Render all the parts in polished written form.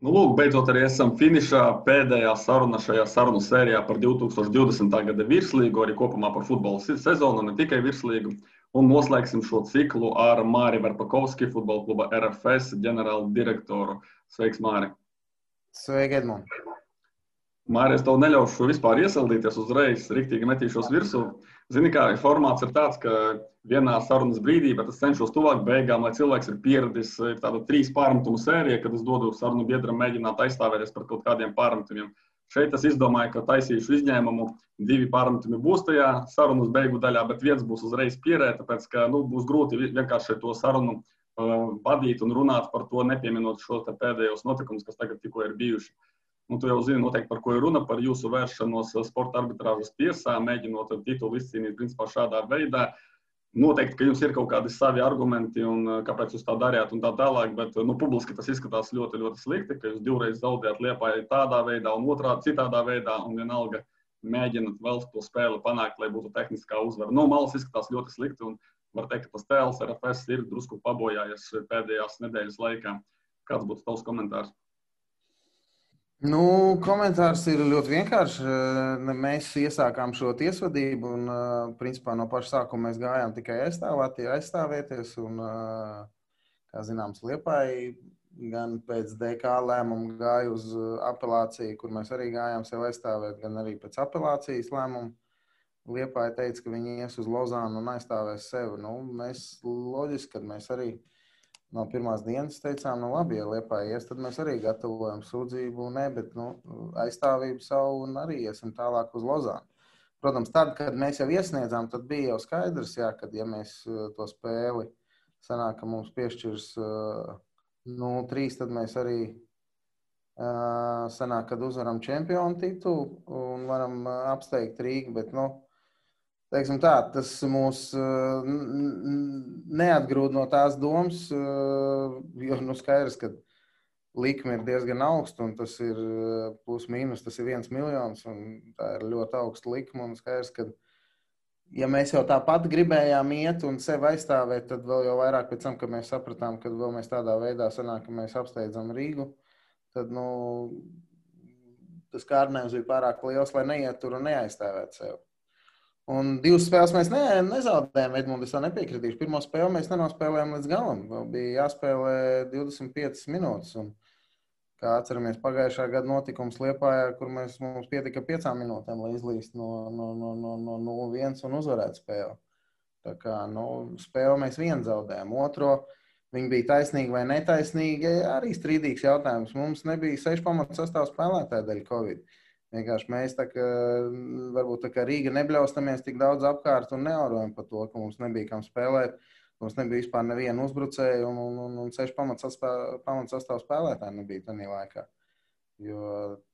Nu, lūk, beidzot arī esam finišā pēdējā saruna šajā sarunu sērijā par 2020. gada virslīgu, arī kopumā par futbola sezonu, ne tikai virslīgu. Un noslēgsim šo ciklu ar Māri Verpakovski, futbola kluba RFS ģenerālu direktoru. Sveiks, Māri! Sveiki, Edmund! Māri, es tev neļaušu vispār iesildīties uzreiz, riktīgi metīšos virsū. Zini, kā formāts ir tāds, ka vienā sarunas brīdī, bet es cenšos tuvāk beigām, lai cilvēks ir pieradis, ir tāda 3 pārmetumu sērija, kad es dodu sarunu biedram mēģināt aizstāvēties par kaut kādiem pārmetumiem. Šeit es izdomāju, ka taisīšu izņēmumu, 2 pārmetumi būs tajā sarunas beigu daļā, bet viens būs uzreiz pierē, tāpēc, ka būs grūti vienkārši to sarunu vadīt un runāt par to, nepieminot šos pēdējos notikumus, kas tagad tikko ir bijuši. Tu jau zini noteikti, par ko ir runa, par jūsu vēršanos sporta arbitrāžas tiesā, mēģinot titulu izcīnīt principā šādā veidā. Noteikti, ka jums ir kaut kādi savi argumenti un kāpēc jūs tā darījāt un tā tālāk, bet publiski tas izskatās ļoti, ļoti slikti, ka jūs 2 reizes zaudējāt Liepāju tādā veidā un otrādi citādā veidā un vienalga mēģināt vēl to spēli panākt, lai būtu tehniskā uzvara. No malas izskatās ļoti slikti un var teikt, ka tas tēls RFS ir drusku pabojājies pēdējās nedēļas laikā. Kāds būtu tavs komentārs? Komentārs ir ļoti vienkāršs. Mēs iesākām šo tiesvedību un, principā, no paša sākuma mēs gājām tikai aizstāvēties. Un, kā zināms, Liepāja gan pēc DK lēmuma gāja uz apelāciju, kur mēs arī gājām sev aizstāvēt, gan arī pēc apelācijas lēmuma. Liepāja teica, ka viņi ies uz Lozānu un aizstāvēs sevi. Mēs loģiski, kad mēs arī no pirmās dienas teicām, labi, ja Liepāja ies, tad mēs arī gatavojam sūdzību, bet aizstāvību savu un arī iesim tālāk uz Lozānu. Protams, tad, kad mēs jau iesniedzām, tad bija jau skaidrs, kad ja mēs to spēli sanāk, ka mums piešķirs 0-3, tad mēs arī sanāk, kad uzvaram čempionu titulu un varam apsteigt Rīgu, bet, teiksim tā, tas mūs neatgrūd no tās domas, jo skaidrs, ka likme ir diezgan augsta un tas ir plus mīnus, tas ir 1 miljons un tā ir ļoti augsta likme un skaidrs, ka ja mēs jau tāpat gribējām iet un sevi aizstāvēt, tad vēl jau vairāk pēc tam, kad mēs sapratām, ka vēl mēs tādā veidā sanāk, ka mēs apsteidzam Rīgu, tad, tas kārdinājums bija pārāk liels, lai neiet tur un neaizstāvēt sevi. Un 2 spēles mēs nezaudējām, Edmund, es tā nepiekritīšu. Pirmo spēli mēs nenospēlējām līdz galam. Vēl bija jāspēlē 25 minūtes. Un, kā atceramies, pagājušā gada notikums Liepājā, kur mums pietika 5 minūtēm, lai izlīst no 0-1 un uzvarētu spēli. Tā kā, spēli mēs vienu zaudējām. Otro, viņi bija taisnīgi vai netaisnīgi, arī strīdīgs jautājums. Mums nebija 6 pamatu sastāvu spēlētāju dēļ Covid. Vienkārši mēs varbūt tā kā Rīga nebļaustamies tik daudz apkārt un neaurojam par to, ka mums nebija kam spēlēt. Mums nebija vispār nevienu uzbrucēju un 6 pamatsastāvu spēlētāji nebija tajā laikā. Jo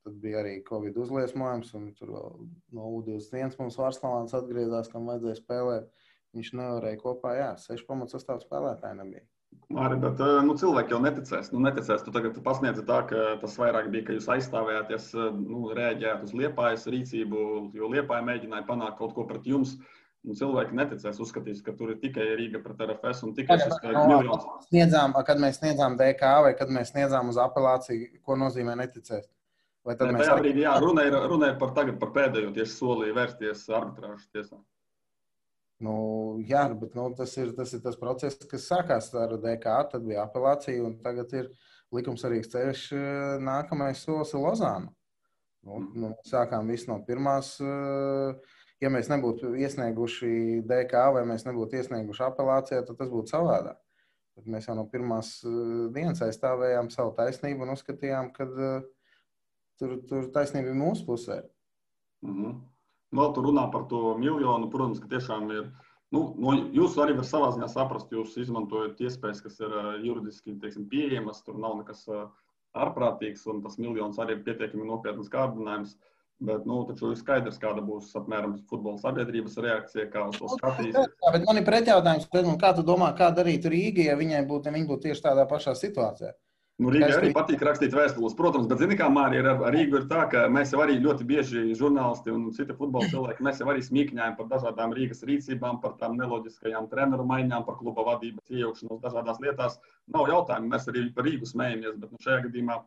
tad bija arī Covid uzliesmojums un tur vēl no U21 mums Varslavāns atgriezās, kam vajadzēja spēlēt. Viņš nevarēja kopā, 6 pamatsastāvu spēlētāji nebija. Māri, bet cilvēki jau neticēs. Neticēs. Tu tagad pasniedzi tā, ka tas vairāk bija, ka jūs aizstāvējāties, reaģējāt uz Liepājas rīcību, jo Liepāja mēģināja panākt kaut ko pret jums. Cilvēki neticēs, uzskatīs, ka tur ir tikai Rīga pret RFS un tikai šis miljons. Kad mēs sniedzām DK vai kad mēs sniedzām uz apelāciju, ko nozīmē neticēs? Vai tad tajā brīdī, runa ir par pēdējo tieši solī vērsties arbitrāžas tiesā. Bet tas ir tas process, kas sākās ar DK, tad bija apelācija un tagad ir likumsarīgs ceļš, nākamais solis ir Lozāna. Sākām visu no pirmās, ja mēs nebūtu iesnieguši DK vai mēs nebūtu iesnieguši apelācijā, tad tas būtu savādāk. Bet mēs jau no pirmās dienas aizstāvējām savu taisnību un uzskatījām, ka tur taisnība ir mūsu pusē. Vēl tu runā par to miljonu, protams, ka tiešām ir, jūs arī var savā ziņā saprast, jūs izmantojat iespējas, kas ir juridiski, pieejamas, tur nav nekas ārprātīgs, un tas miljons arī ir pietiekami nopietnas kārdinājums, bet, taču ir skaidrs, kāda būs apmēram futbola sabiedrības reakcija, kā uz to skatīs. Bet man ir pretjautājums, kā tu domā, kā darīt Rīga, ja viņi būtu tieši tādā pašā situācijā? Rīgai arī patīk rakstīt vēstules, protams, bet zini kā, Māri, ar Rīgu ir tā, ka mēs jau arī ļoti bieži žurnālisti un citi futbola cilvēki, mēs jau arī smīkņājam par dažādām Rīgas rīcībām, par tām neloģiskajām treneru maiņām, par kluba vadības iejaukšanos dažādās lietās. Nav jautājumu, mēs arī par Rīgu smējamies, bet šajā gadījumā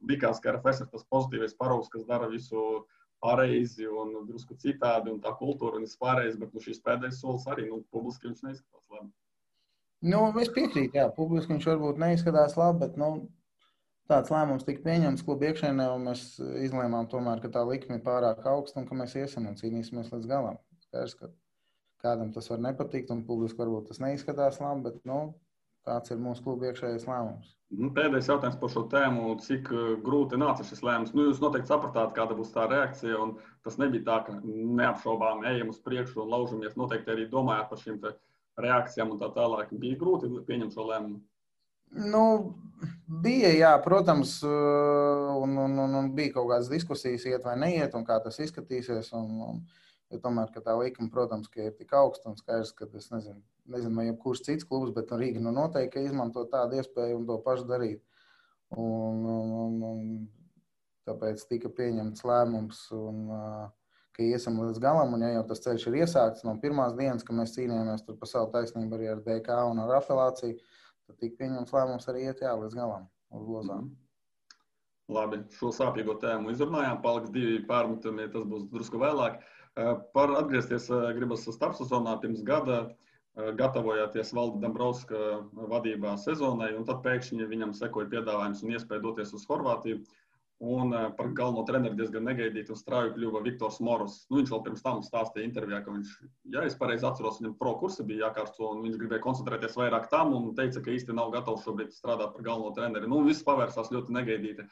likās, ka RFS ir tas pozitīvais paraugs, kas dara visu pareizi un drusku citādi, un tā kultūra un viss pārējais, bet šīs pēdējais solis arī, publiski viņš neizskatās labi. Es piekrītu, jā, publiski viņš varbūt neizskatās labi, bet, tāds lēmums tika pieņemts klubu iekšēnē, un mēs izlēmām tomēr, ka tā likme ir pārāk augsta un ka mēs iesim un cīnīsimies līdz galam. Skaidrs, ka kādam tas var nepatikt, un publiski varbūt tas neizskatās labi, bet, tāds ir mūsu klubu iekšējais lēmums. Pēdējais jautājums par šo tēmu, cik grūti nāca šis lēmums. Jūs noteikti sapratāt, kāda būs tā reakcija, un tas nebija tā, ka neapšaubām ejam uz priekšu un laužamies. Noteikti arī domājāt par šīm reakcijām un tā tālāk. Bija grūti pieņemt šo lēmumu? Bija, jā, protams, un bija kaut kādas diskusijas, iet vai neiet, un kā tas izskatīsies. Jo tomēr, ka tā likuma, protams, ka ir tik augsta un skaidrs, ka es nezinu, vai jebkurš cits klubs, bet Rīga noteikti izmanto tādu iespēju un to pašu darīt. Un tāpēc tika pieņemts lēmums, ka iesim līdz galam, un ja jau tas ceļš ir iesākts no pirmās dienas, ka mēs cīnījāmies tur par savu taisnību arī ar DK un ar apelāciju, tad tika pieņemts lēmums arī iet līdz galam uz lozām. Labi, šo sāpīgo tēmu izrunājām, paliks 2 pārmetumi, tas būs drusku vēlāk. Par atgriezties gribas starpsezonā pirms gada, gatavojāties Valda Dombrovska vadībā sezonai, un tad pēkšņi viņam sekoja piedāvājums un iespēja doties uz Horvātiju. Un par galveno treneri diezgan negaidīti un strauji kļuva Viktors Moros. Viņš vēl pirms tam stāstīja intervijā, ka viņš, ja es pareizi atceros, viņam pro kursi bija jākārsto, un viņš gribēja koncentrēties vairāk tam un teica, ka īsti nav gatavs šobrīd strādāt par galveno treneri. Viss pavērsās ļoti negaidīti.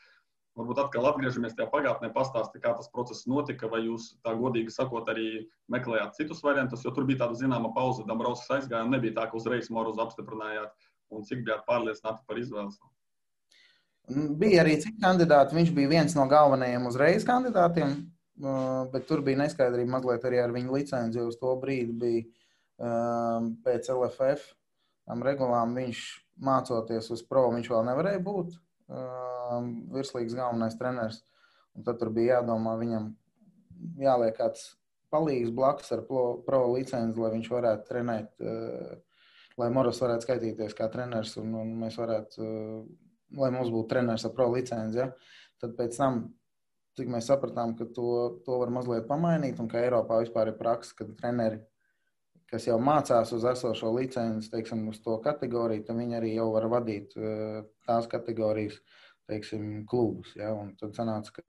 Varbūt atkal atgriežamies tajā pagātnē, pastāsti, kā tas process notika, vai jūs tā godīgi sakot arī meklējāt citus variantus, jo tur bija tāda zināma pauze, Dombrovskis aizgāja un nebija tā, ka uzreiz Morozu apstiprinājāt, un cik bijāt pārliecināti par izvēles? Bija arī citi kandidāti, viņš bija viens no galvenajiem uzreiz kandidātiem, bet tur bija neskaidrība mazliet arī ar viņu licenci, jo uz to brīdi bija pēc LFF regulām viņš mācoties uz pro, viņš vēl nevarēja būt virslīgas galvenais treneris. Un tad tur bija jādomā, viņam jāliek kāds palīgs blakus ar pro licenci, lai viņš varētu trenēt, lai Moros varētu skaitīties kā treneris un mēs varētu, lai mums būtu treneris ar pro licenci. Ja? Tad pēc tam, cik mēs sapratām, ka to var mazliet pamainīt un ka Eiropā vispār ir praksa, ka treneri, kas jau mācās uz esošo licenci, teiksim, uz to kategoriju, tad viņi arī jau var vadīt tās kategorijas, teiksim, klubus. Ja? Un tad sanāca, ka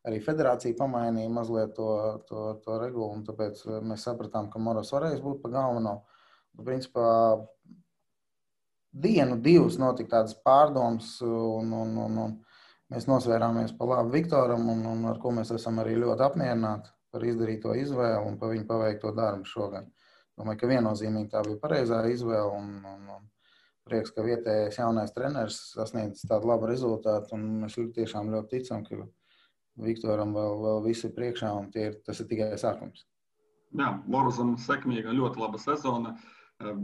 arī federācija pamainīja mazliet to regulu, un tāpēc mēs sapratām, ka Moros varēs būt pa galveno. Principā 1, 2 notika tādas pārdomas, un mēs nosvērāmies pa labu Viktoram, un ar ko mēs esam arī ļoti apmierināti par izdarīto izvēli un par viņu paveikto darbu šogad. Domāju, ka viennozīmīgi tā bija pareizā izvēle un prieks, ka vietējais jaunais treneris sasniedz tādu labu rezultātu, un mēs tiešām ļoti ticam, ka Viktoram vēl viss ir priekšā, un tas ir tikai sākums. Jā, Morozam sekmīga, ļoti laba sezona,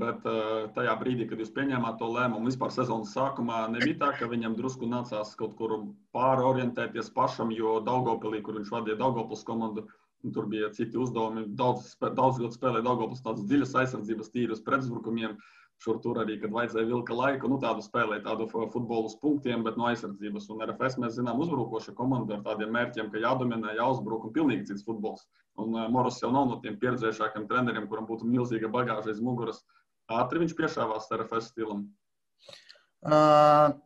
bet tajā brīdī, kad jūs pieņēmāt to lēmumu, vispār sezonas sākumā nebija tā, ka viņam drusku nācās kaut kur pārorientēties pašam, jo Daugavpilī, kur viņš vadīja Daugavpils komandu, tur bija citi uzdevumi, daudz ļoti spēlēja Daugavpils tādas dziļas aizsardzības tīrus pretuzbrukumiem, šur tur arī, kad vajadzēja vilka laiku, tādu spēlēja tādu futbolu uz punktiem, bet no aizsardzības. Un RFS mēs zinām uzbrukoša komanda ar tādiem mērķiem, ka jādominē, jāuzbruk un pilnīgi cits futbols. Un Moros jau nav no tiem pieredzējušākiem treneriem, kuram būtu milzīga bagāža aiz muguras. Ātri viņš piešāvās RFS stilam.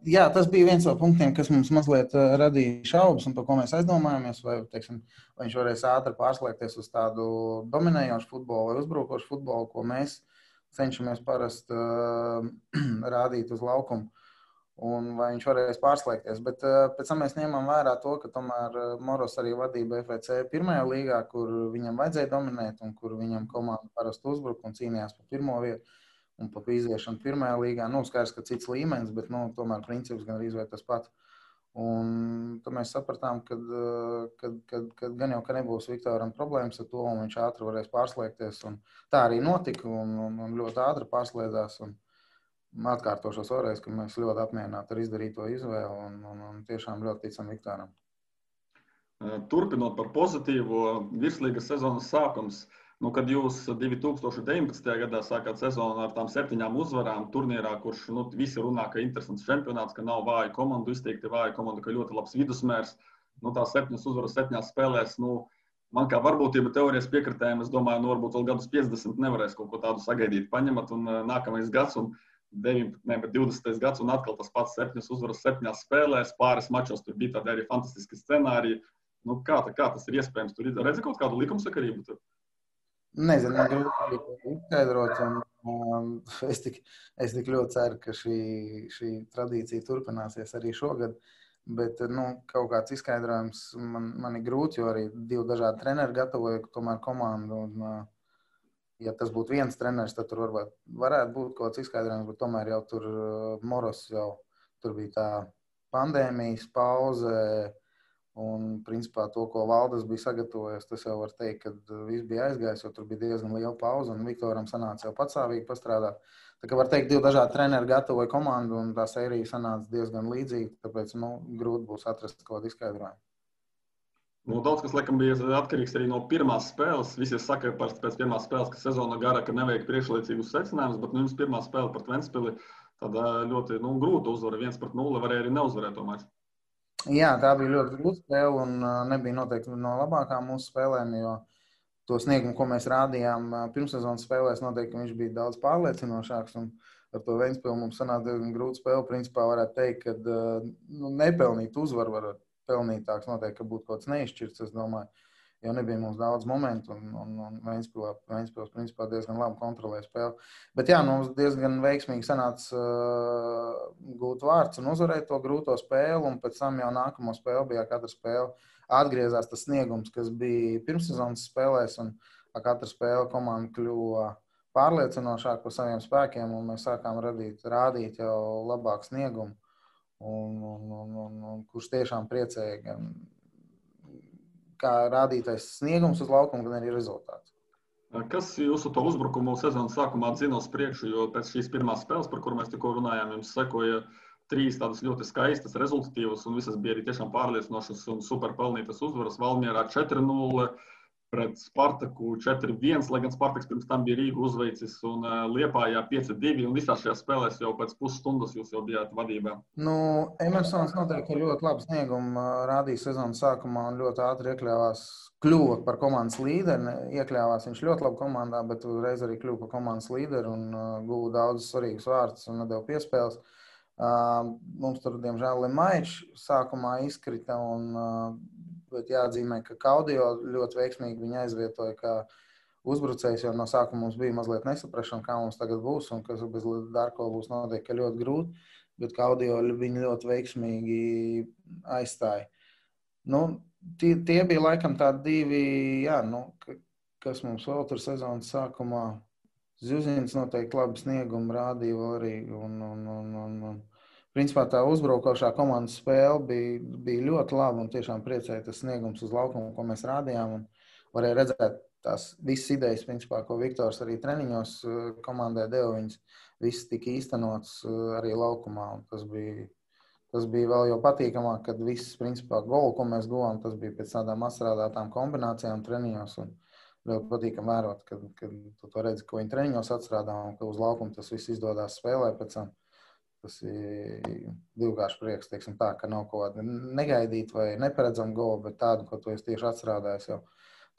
Jā, tas bija viens no punktiem, kas mums mazliet radīja šaubas un par ko mēs aizdomājāmies, vai viņš varēs ātri pārslēgties uz tādu dominējošu futbolu vai uzbrukošu futbolu, ko mēs cenšamies parasti rādīt uz laukumu, un vai viņš varēs pārslēgties. Bet pēc tam mēs ņemam vērā to, ka tomēr Moros arī vadīja BFC pirmajā līgā, kur viņam vajadzēja dominēt un kur viņam komanda parasti uzbruka un cīnījās par pirmo vietu. Un pa iziešanu pirmajā līgā, skaidrs, ka cits līmenis, bet tomēr princips gan arī tas pats. Un tad mēs sapratām, ka gan jau, ka nebūs Viktoram problēmas ar to, un viņš ātri varēs pārslēgties. Un tā arī notika, un ļoti ātri pārslēdzās. Un atkārtošos vēlreiz, ka mēs ļoti apmierināti ar izdarīto izvēli un tiešām ļoti ticam Viktoram. Turpinot par pozitīvo, virslīgas sezonas sākums. Nu, kad jūs 2019. gadā sākāt sezonu ar tām 7 uzvarām turnīrā, kurš visi runā, ka interesants čempionāts, ka nav vāja komandu, izteikti vāja komanda, ka ļoti labs vidusmērs. Tās 7 uzvaras 7 spēlēs, man kā varbūtība teorijas piekritējiem, es domāju, varbūt vēl gadus 50 nevarēs kaut ko tādu sagaidīt, paņemat, un nākamais gads, un 20. gads, un atkal tas pats 7 uzvaras 7 spēlēs, pāris mačos, tur bija tādi arī fantastiski scenāriji. Kā tas ir iespējams? Tur redzi kaut kādu likumsakarību tur? Nezinu, man grūti izskaidrot, un es tik ļoti ceru, ka šī tradīcija turpināsies arī šogad, bet kaut kāds izskaidrojums man ir grūti, jo arī 2 dažādi treneri gatavoja tomēr komandu, un ja tas būtu viens treneris, tad tur varētu būt kaut kāds izskaidrojums, bet tomēr jau tur Moros tur bija tā pandēmijas pauze. Un, principā, to, ko Valdes bija sagatavojis, tas jau var teikt, ka viss bija aizgājis, jo tur bija diezgan liela pauze, un Viktoram sanāca jau patstāvīgi pastrādāt. Tā kā var teikt, 2 dažādi treneri gatavoja komandu, un tā sērija sanāca diezgan līdzīga, tāpēc grūti būs atrast kaut kādu izskaidrojumu. Daudz kas, laikam, bija atkarīgs arī no pirmās spēles. Visi saka pēc pirmās spēles, ka sezona gara, ka nevajag priekšlaicīgus secinājumus, bet jums pirmā spēle pret Ventspili tāda ļoti grūta uzvara, 1-0, varēja arī neuzvarēt to maču. Jā, tā bija ļoti grūta spēle un nebija noteikti no labākām mūsu spēlēm, jo to sniegumu, ko mēs rādījām pirmssezonas spēlēs, noteikti viņš bija daudz pārliecinošāks. Un ar to Ventspili mums sanāca diezgan grūta spēle. Principā varētu teikt, ka nepelnīt uzvaru var pelnītāks, noteikti, ka būtu kaut kāds neizšķirts, es domāju. Jo nebija mums daudz momentu, un Ventspils principā diezgan labi kontrolēja spēli. Bet jā, mums diezgan veiksmīgi sanāca gūt vārds un uzvarēt to grūto spēli, un pēc tam jau nākamo spēli bija katra spēle atgriezās tas sniegums, kas bija pirmssezonas spēlēs, un katra spēle komanda kļuva pārliecinošāk par saviem spēkiem, un mēs sākām rādīt jau labāku sniegumu, un kurš tiešām priecēja gan kā rādītais sniegums uz laukuma, gan arī rezultāts. Kas jūsu to uzbrukumu sezonas sākumā dzina uz priekšu, jo pēc šīs pirmās spēles, par kuru mēs tikko runājām, jums sekoja 3 tādas ļoti skaistas, rezultatīvas, un visas bija arī tiešām pārliecinošas un super pelnītas uzvaras. Valmierā 4-0, pret Spartaku 4-1, lai gan Spartaks pirms tam bija Rīgu uzveicis, un Liepājā 5-2, un visās šajās spēlēs jau pēc pusstundas jūs jau bijāt vadībā. Emersons noteikti ļoti labu sniegumu rādīja sezonas sākumā un ļoti ātri kļuva par komandas līderi. Iekļāvās viņš ļoti labi komandā, bet uzreiz arī kļuva par komandas līderi un guva daudz svarīgus vārdus un nedēļu piespēles. Mums tur, diemžēl, Lemaičs sākumā izkrita, bet jāatzīmē, ka Kaudio ļoti veiksmīgi viņu aizvietoja kā uzbrucējs, jo no sākuma mums bija mazliet nesaprašana, kā mums tagad būs, un kas bez Darko būs noteikti ļoti grūti, bet Kaudio viņu ļoti veiksmīgi aizstāja. Tie bija laikam tādi 2, kas mums vēl tur sezonas sākumā. Zuzins noteikti labi sniegumu rādīja vēl arī, un principā tā uzbraukošā komandas spēle bija ļoti laba un tiešām priecēja tas sniegums uz laukumu, ko mēs rādījām, un varēja redzēt tās visas idejas, principā, ko Viktors arī treniņos komandai deva, viņas visas tika īstenots arī laukumā, un tas bija vēl jau patīkamāk, kad viss, principā, golu, ko mēs guvām, tas bija pēc tādām atstrādātām kombinācijām treniņos, un ļoti patīkam vērot, kad tu to redzi, ko viņi treniņos atstrādā, un ka uz laukumu tas viss izdodās spēlē pēc tam. Tas ir divkārši prieks, teiksim tā, ka nav kaut kāda negaidīta vai neparedzama gola, bet tādu, ko tu esi tieši atstrādājis jau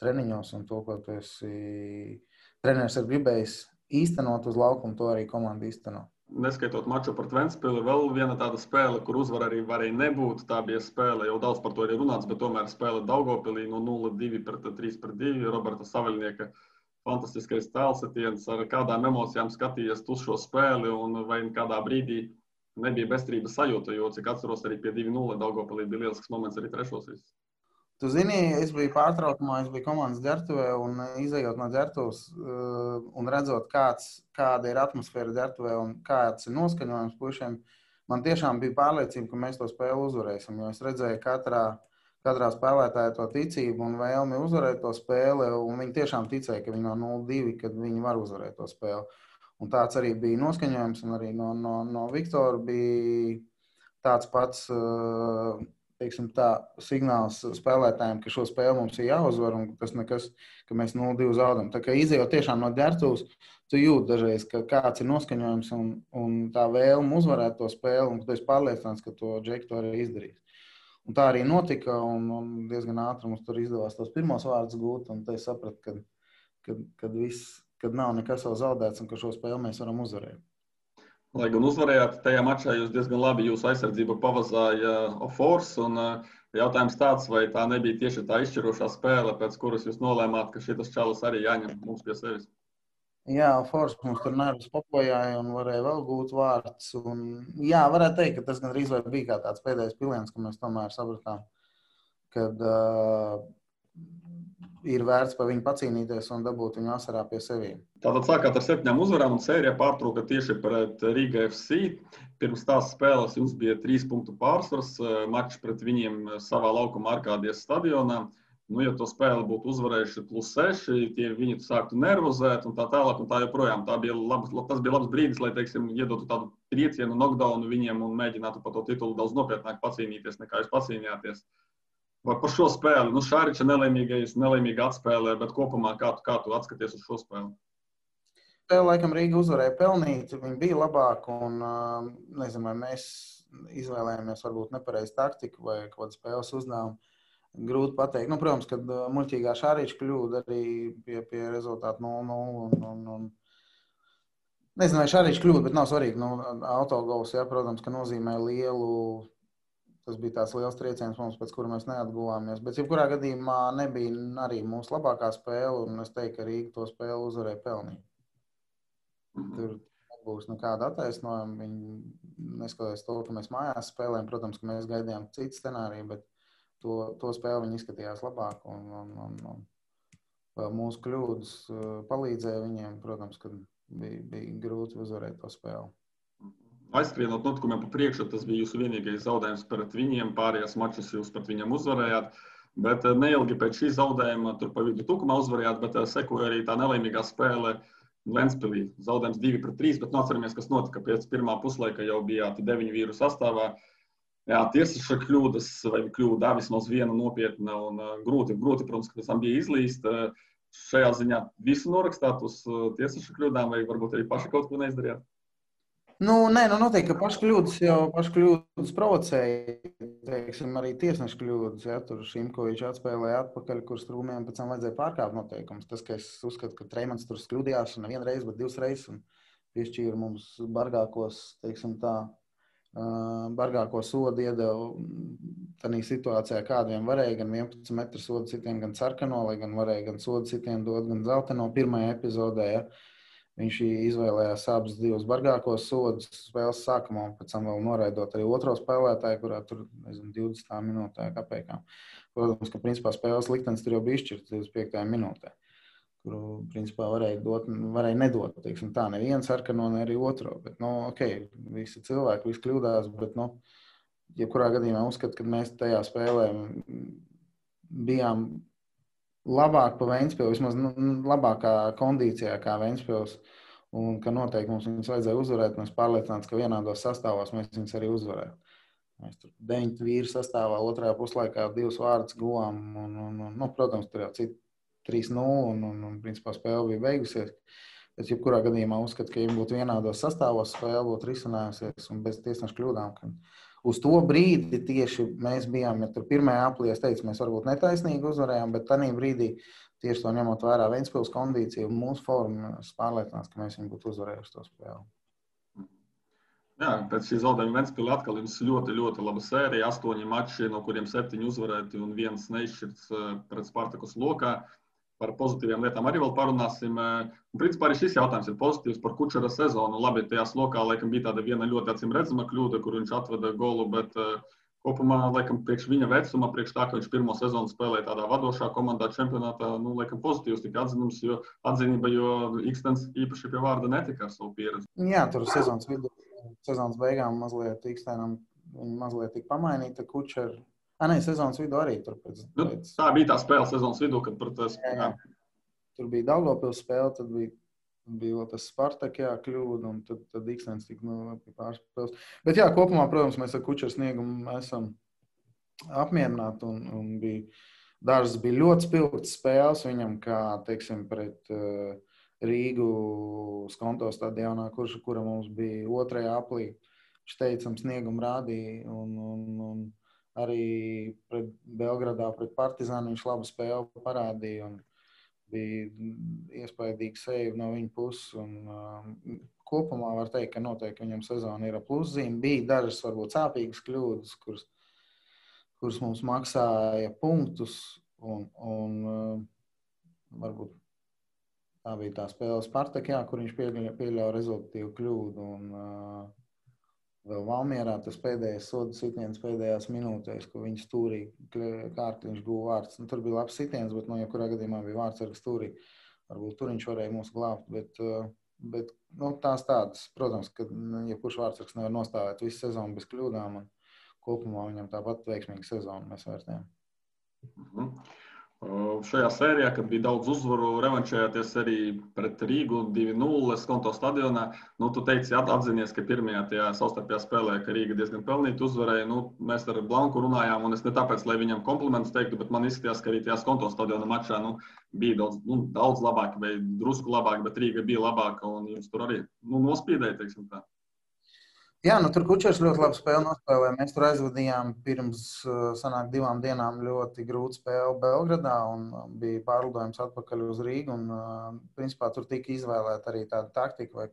treniņos, un to, ko tu esi treneris ir gribējis īstenot uz laukumu, to arī komanda īsteno. Neskaitot maču pret Ventspili, vēl viena tāda spēle, kur uzvar arī varēja nebūt. Tā bija spēle, jau daudz par to ir runāts, bet tomēr spēle Daugavpilī no 0-2 pret 3-2. Roberta Saveļnieka fantastiskais tēlsetiens, ar kādām emocijām skatījies uz šo spēli, un vai kādā brīdī nebija bezcerības sajūta, jo, cik atceros, arī pie 2-0 Daugavpilī bija lielisks moments arī trešos visus. Tu zini, es biju pārtraukumā, es biju komandas ģertuvē, un izejot no ģertuves un redzot, kāda ir atmosfēra ģertuvē un kāds ir noskaņojums pušiem, man tiešām bija pārliecība, ka mēs to spēli uzvarēsim, jo es redzēju katrā spēlētāja to ticību un vēlmi uzvarēt to spēli, un viņi tiešām ticēja, ka viņi no 0-2, kad viņi var uzvarēt to spēli. Un tāds arī bija noskaņojums, un arī no Viktora bija tāds pats, teiksim tā, signāls spēlētājiem, ka šo spēli mums ir jāuzvar, un tas nekas, ka mēs 0-2 zaudam. Tā kā izejot tiešām no ģērbtuves, tu jūti dažreiz, ka kāds ir noskaņojums un tā vēlme uzvarēt to spēli, un tu esi pārliecināts, ka to Džeki to arī izdarīs. Un tā arī notika, un diezgan ātri mums tur izdevās tos pirmos vārdus gūt, un te es sapratu, kad nav nekas vēl zaudēts, un ka šo spēli mēs varam uzvarēt. Lai gan uzvarējāt, tajā mačā jūs diezgan labi jūsu aizsardzību pavazāja Ofors, un jautājums tāds, vai tā nebija tieši tā izšķirošā spēle, pēc kuras jūs nolēmāt, ka šitas čalis arī jāņem mums pie sevis? Jā, Force mums tur nervus papojāja un varēja vēl gūt vārds. Un, jā, varētu teikt, ka tas gandrīz vai bija kā tāds pēdējais piliens, ka mēs tomēr sapratām, kad ir vērts par viņu pacīnīties un dabūt viņu asarā pie sevīm. Tātad sākāt ar 7 uzvarām un sērija pārtrūka tieši pret Riga FC. Pirms tās spēles jums bija 3 punktu pārsvars, mačs pret viņiem savā laukuma Arkādijas stadionā. Nu, ja to spēli būtu uzvarējuši +6, tie viņi sāktu nervozēt un tā tālāk un tā joprojām. Tas bija labs brīdis, lai, teiksim, iedotu tādu triecienu, knockdownu viņiem un mēģinātu par to titulu daudz nopietnāk pacīnīties, nekā jūs pacīnījāties. Vai par šo spēli? Nu, Šāriča nelaimīga atspēlē, bet kopumā kā tu atskaties uz šo spēli? Spēle, laikam, Rīga uzvarēja pelnīt, viņi bija labāki un, nezinu, vai mēs izvēlējāmies varbūt nepareizu taktiku vai kaut kādu spēles uzdevumu. Grūti pateikt. Nu, protams, kad muļķīgā Šāriča kļūda arī pie rezultātu 0-0. Nezinu, vai Šāriča kļūda, bet nav svarīgi. Nu, autogols, jā, protams, ka nozīmē lielu. Tas bija tāds liels trieciens mums, pēc kura mēs neatguvāmies. Bet, jebkurā gadījumā, nebija arī mūsu labākā spēle, un es teiktu, ka Rīga to spēli uzvarēja pelnīt. Tur nebūs nekāda attaisnojuma. Viņi neskatoties to, ka mēs mājās spēlējam. Protams, ka mēs gaidījām citu scenāriju, bet to spēli viņi izskatījās labāk, un mūsu kļūdas palīdzēja viņiem. Protams, ka bija grūti uzvarēt to spēli. Aizskrienot notikumiem pa priekšu, tas bija jūsu vienīgais zaudējums pret viņiem. Pārējās mačus jūs pret viņiem uzvarējāt. Bet neilgi pēc šī zaudējuma, tur pa vidu Tukumā uzvarējāt, bet sekoja arī tā nelaimīgā spēle Ventspilī. Zaudējums 2-3, bet atceramies, kas notika pēc pirmā puslaika, jau bijāt 9 vīru sastāvā. Jā, tiesneša kļūdas vai kļūda vismaz viena nopietna un grūti, protams, ka pēc tam bija izlīst. Šajā ziņā visu norakstāt uz tiesneša kļūdām vai varbūt arī paši kaut ko neizdarījāt? Nē, noteikti, ka paši kļūdas provocēja, teiksim, arī tiesneša kļūdas. Ja, tur Šimkovičs atspēlēja atpakaļ, kur Strūmiem pēc tam vajadzēja pārkāpt noteikumus. Tas, ka es uzskatu, ka Treimans tur kļūdījās nevienu reizi, bet 2 reizes un piešķīra mums bargākos, teiksim tā, bargāko sodu iedeva tādā situācijā, kādiem varēja gan 11 metru sodu sitienu, gan sarkano, lai gan varēja gan sodu sitienu dot, gan zeltaino pirmajā epizodē. Ja. Viņš izvēlējās abus 2 bargākos sodus spēles sākumā, un pēc tam vēl noraidot arī otro spēlētāju, kurā tur, nezinu, 20 minūtē kāpēkām. Protams, ka principā spēles liktenis tur jau bija izšķirts 25. minūtē, kuru, principā, varēja nedot, teiksim tā, nevienu sarkano, ne arī otro. Bet, visi cilvēki, visi kļūdās, bet, jebkurā gadījumā uzskatu, ka mēs tajā spēlē bijām labāk pa Ventspili, vismaz labākā kondīcijā kā Ventspils, un ka noteikti mums viņus vajadzēja uzvarēt, mēs pārliecināts, ka vienādos sastāvos mēs viņus arī uzvarētu. Mēs tur 9 vīru sastāvā, otrajā puslaikā 2 vārdus guvām, un protams, tur jau citi 3-0, un principā spēle bija beigusies. Bet, jebkurā gadījumā uzskatu, ka, ja būtu vienādos sastāvos, spēle būtu risinājusies un bez tiesneša kļūdām. Uz to brīdi tieši mēs bijām, ja tur pirmajā aplī, es teicu, mēs varbūt netaisnīgi uzvarējām, bet tajā brīdī tieši to ņemot vērā Ventspils kondīciju un mūsu formu, es pārliecinās, ka mēs viņu būtu uzvarējuši to spēli. Jā, pēc šī zaudējuma Ventspilī atkal jums ļoti, ļoti laba sērija. 8 mači, no kuriem 7 uzvarēti un 1 neizšķirts pret Spartakus lokā. Par pozitīvām lietām arī vēl parunāsim. Principā arī šis jautājums ir pozitīvs par Kučera sezonu. Labi, tajās lokā laikam bija tāda viena ļoti acīm redzama kļūda, kur viņš atveda golu, bet kopumā, laikam, priekš viņa vecuma, priekš tā, ka viņš pirmo sezonu spēlēja tādā vadošā komandā čempionātā, laikam pozitīvs tika atzinība, jo Ikstens īpaši pie vārda netika ar savu pieredzi. Jā, tur sezonas beigām mazliet Ikstenam viņi mazliet tika pamainīta Kučera. Sezonas vidū arī tur pēc. Tā bija tā spēle sezonas vidū, kad par tas. Jā. Tur bija Daugavpils spēle, tad bija vēl tas Spartak, kļūda, un tad Ikstens tika pārspēles. Bet jā, kopumā, protams, mēs ar Kučera sniegumu esam apmierināti un dažas bija ļoti spilgtas spēles viņam, kā, teiksim, pret Rīgu Skonto stadionā, kura mums bija 2. aplī. Viņš teicam sniegumu rādīja un arī pret Belgradā, pret Partizānu viņš labu spēli parādīja un bija iespaidīgi save no viņa puses. Kopumā var teikt, ka noteikti viņam sezona ir pluszīme. Bija dažas varbūt sāpīgas kļūdas, kuras mums maksāja punktus un varbūt tā bija tā spēle Spartakā, kur viņš pieļauja rezultatīvu kļūdu un vēl Valmierā tas pēdējais soda sitiens pēdējās minūtēs, ko viņš stūrī kārtliņš guva vārds. Tur bija labs sitiens, bet jebkurā gadījumā bija vārds ar stūrī. Varbūt tur viņš varēja mūs glābt, bet tās tādas. Protams, ka jebkurš vārdsargs nevar nostāvēt visu sezonu bez kļūdām un kopumā viņam tāpat veiksmīga sezona mēs vērtējam. Šajā sērijā, kad bija daudz uzvaru, revanšējāties arī pret Rīgu 2-0 Skonto stadionā. Tu teici, atzinies, ka pirmajā tajā savstarpējā spēlē, ka Rīga diezgan pelnīti uzvarēja. Mēs ar Blanku runājām, un es ne tāpēc, lai viņam komplimentus teiktu, bet man izskatījās, ka arī tajā Skonto stadiona mačā bija daudz labāk vai drusku labāk, bet Rīga bija labāka, un jums tur arī nospīdēja, teiksim tā. Jā, tur Kučers ļoti labu spēli nospēlēja. Mēs tur aizvadījām pirms 2 dienām ļoti grūtu spēli Belgradā un bija pārlidojums atpakaļ uz Rīgu. Principā tur tika izvēlēta arī tāda taktika vai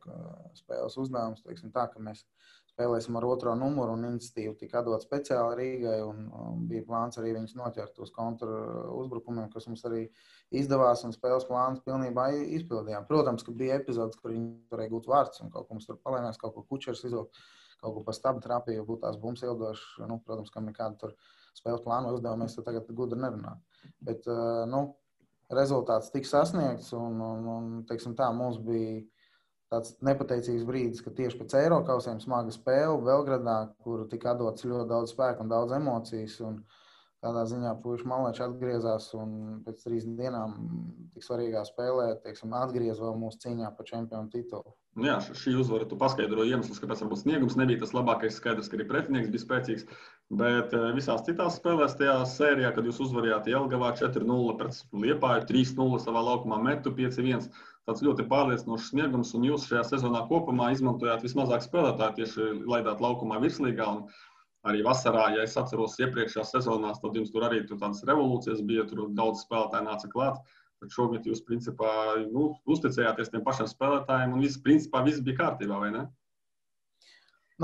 spēles uzdevums, teiksim tā, ka mēs spēlēsim ar 2. numuru un iniciatīvu tika atdot speciāli Rīgai un bija plāns arī viņus noķert uz kontra uzbrukumiem, kas mums arī izdevās un spēles plāns pilnībā izpildījām. Protams, ka bija epizodes, kur viņi varēja gūt vārds un kaut ko mums tur palēmēs, kaut ko Kučers izvilkt. Kaut ko pa stabu trāpīja, būtu tās bumbas ildošas. Protams, ka nekāda tur spēles plāna uzdevuma mēs tur tagad gudri nerunājam. Bet, rezultāts tika sasniegts un teiksim tā, mums bija tāds nepateicīgs brīdis, ka tieši pēc Eirokausiem smaga spēle Belgradā, kur tika atdots ļoti daudz spēku un daudz emocijas. Un tādā ziņā puiši malēči atgriezās un pēc 3 dienām tik svarīgā spēlē, teiksim, atgriez vēl mūsu cīņā par čempionu titulu. Jā, šī uzvara tu paskaidroji iemeslus, kāpēc varbūt sniegums nebija tas labākais, skaidrs, ka arī pretinieks bija spēcīgs, bet visās citās spēlēs tajā sērijā, kad jūs uzvarījāt Jelgavā 4-0 pret Liepāju, 3-0 savā laukumā metu 5-1, tāds ļoti pārliecinošs sniegums, un jūs šajā sezonā kopumā izmantojāt vismazāk spēlētāju, tieši laidāt laukumā virslīgā, un arī vasarā, ja es atceros iepriekšējās sezonās, tad jums tur arī tādas revolūcijas bija, tur daudz spēlētāji nāca klāt. Tad šogad jūs, principā, uzticējāties tiem pašiem spēlētājiem un principā viss bija kārtībā, vai ne?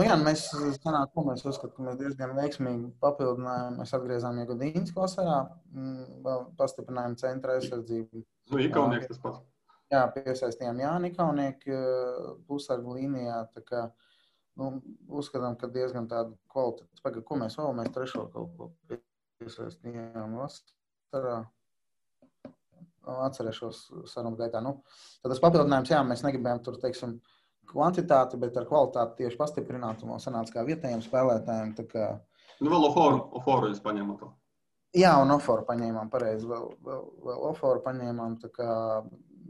Jā, mēs uzskatām, ka mēs diezgan veiksmīgi papildinājām. Mēs atgriezām Iegodīņas vasarā, vēl pastiprinājām centra aizsardzību. Ikaunieks tas pats. Jā, piesaistījām Jāni Ikaunieki pusargu līnijā, tā kā uzskatām, ka diezgan tāda kvalitāte. Pagaid, ko mēs vēl? Mēs 3. kaut ko piesaistījām vasarā. Atcerēšos sarunu gaitā. Tad tas papildinājums, jā, mēs negribējām tur, teiksim, kvantitāti, bet ar kvalitāti tieši pastiprināt un vēl sanāca kā vietējiem spēlētājiem. Tā kā... Vēl Oforu jūs paņēmāt to? Jā, un Oforu paņēmām, pareizi. Vēl Oforu paņēmām, tā kā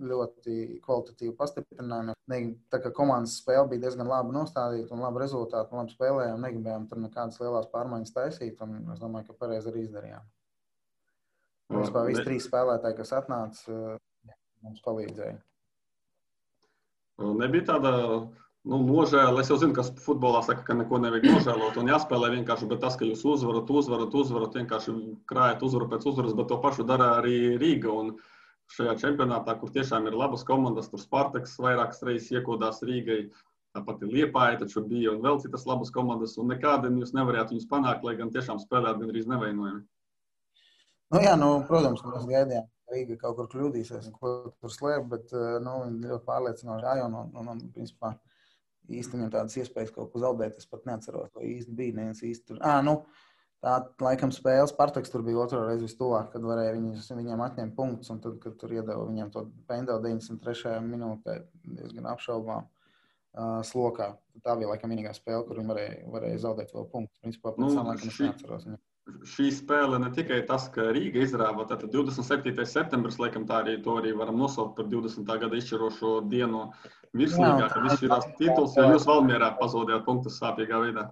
ļoti kvalitatīvi pastiprinājumi. Tā kā komandas spēle bija diezgan labi nostādīta un labi rezultāti un labi spēlējām, negribējām tur nekādas lielās pārmaiņas taisīt un es domāju, ka pareizi arī izdarījām. Vispār visi 3 spēlētāji, kas atnāca, mums palīdzēja. Nebija tāda nožēla. Es jau zinu, ka futbolā saka, ka neko nevajag nožēlot un jāspēlē vienkārši, bet tas, ka jūs uzvarat, vienkārši krājat uzvaru pēc uzvaras, bet to pašu dara arī Rīga. Un šajā čempionātā, kur tiešām ir labas komandas, tur Spartaks vairākas reizes iekodās Rīgai, tāpat ir Liepāja, taču bija un vēl citas labas komandas, un nekādien jūs nevarētu viņus panākt, lai gan tiešām spēlēt gandrīz nevainojami. Protams, mēs gaidījām, ka Rīga kaut kur kļūdīsies un ko tur slēp, bet viņi ļoti pārliecinoši gāja un principā īsti viņam tādas iespējas kaut ko zaudēt. Es pat neatceros, vai īsti bija neviens īsti tur. Tā laikam spēles Spartaks tur bija 2. reizi vistuvāk, kad varēja viņiem atņemt punktus un tad, kad tur iedeva viņiem to pendeli 93. minūtē diezgan apšaubām slokā. Tā bija laikam vienīgā spēle, kur viņi varēja zaudēt vēl punktus. Principā pēc tam laikam es neatceros viņam. Šī spēle ne tikai tas, ka Rīga izrāva, tātad 27. septembris, laikam to arī varam nosaukt par 20. gada izšķirošo dienu virslīgā, kad izšķirās tituls, jo jūs Valmierā pazaudējāt punktus sāpīgā veidā.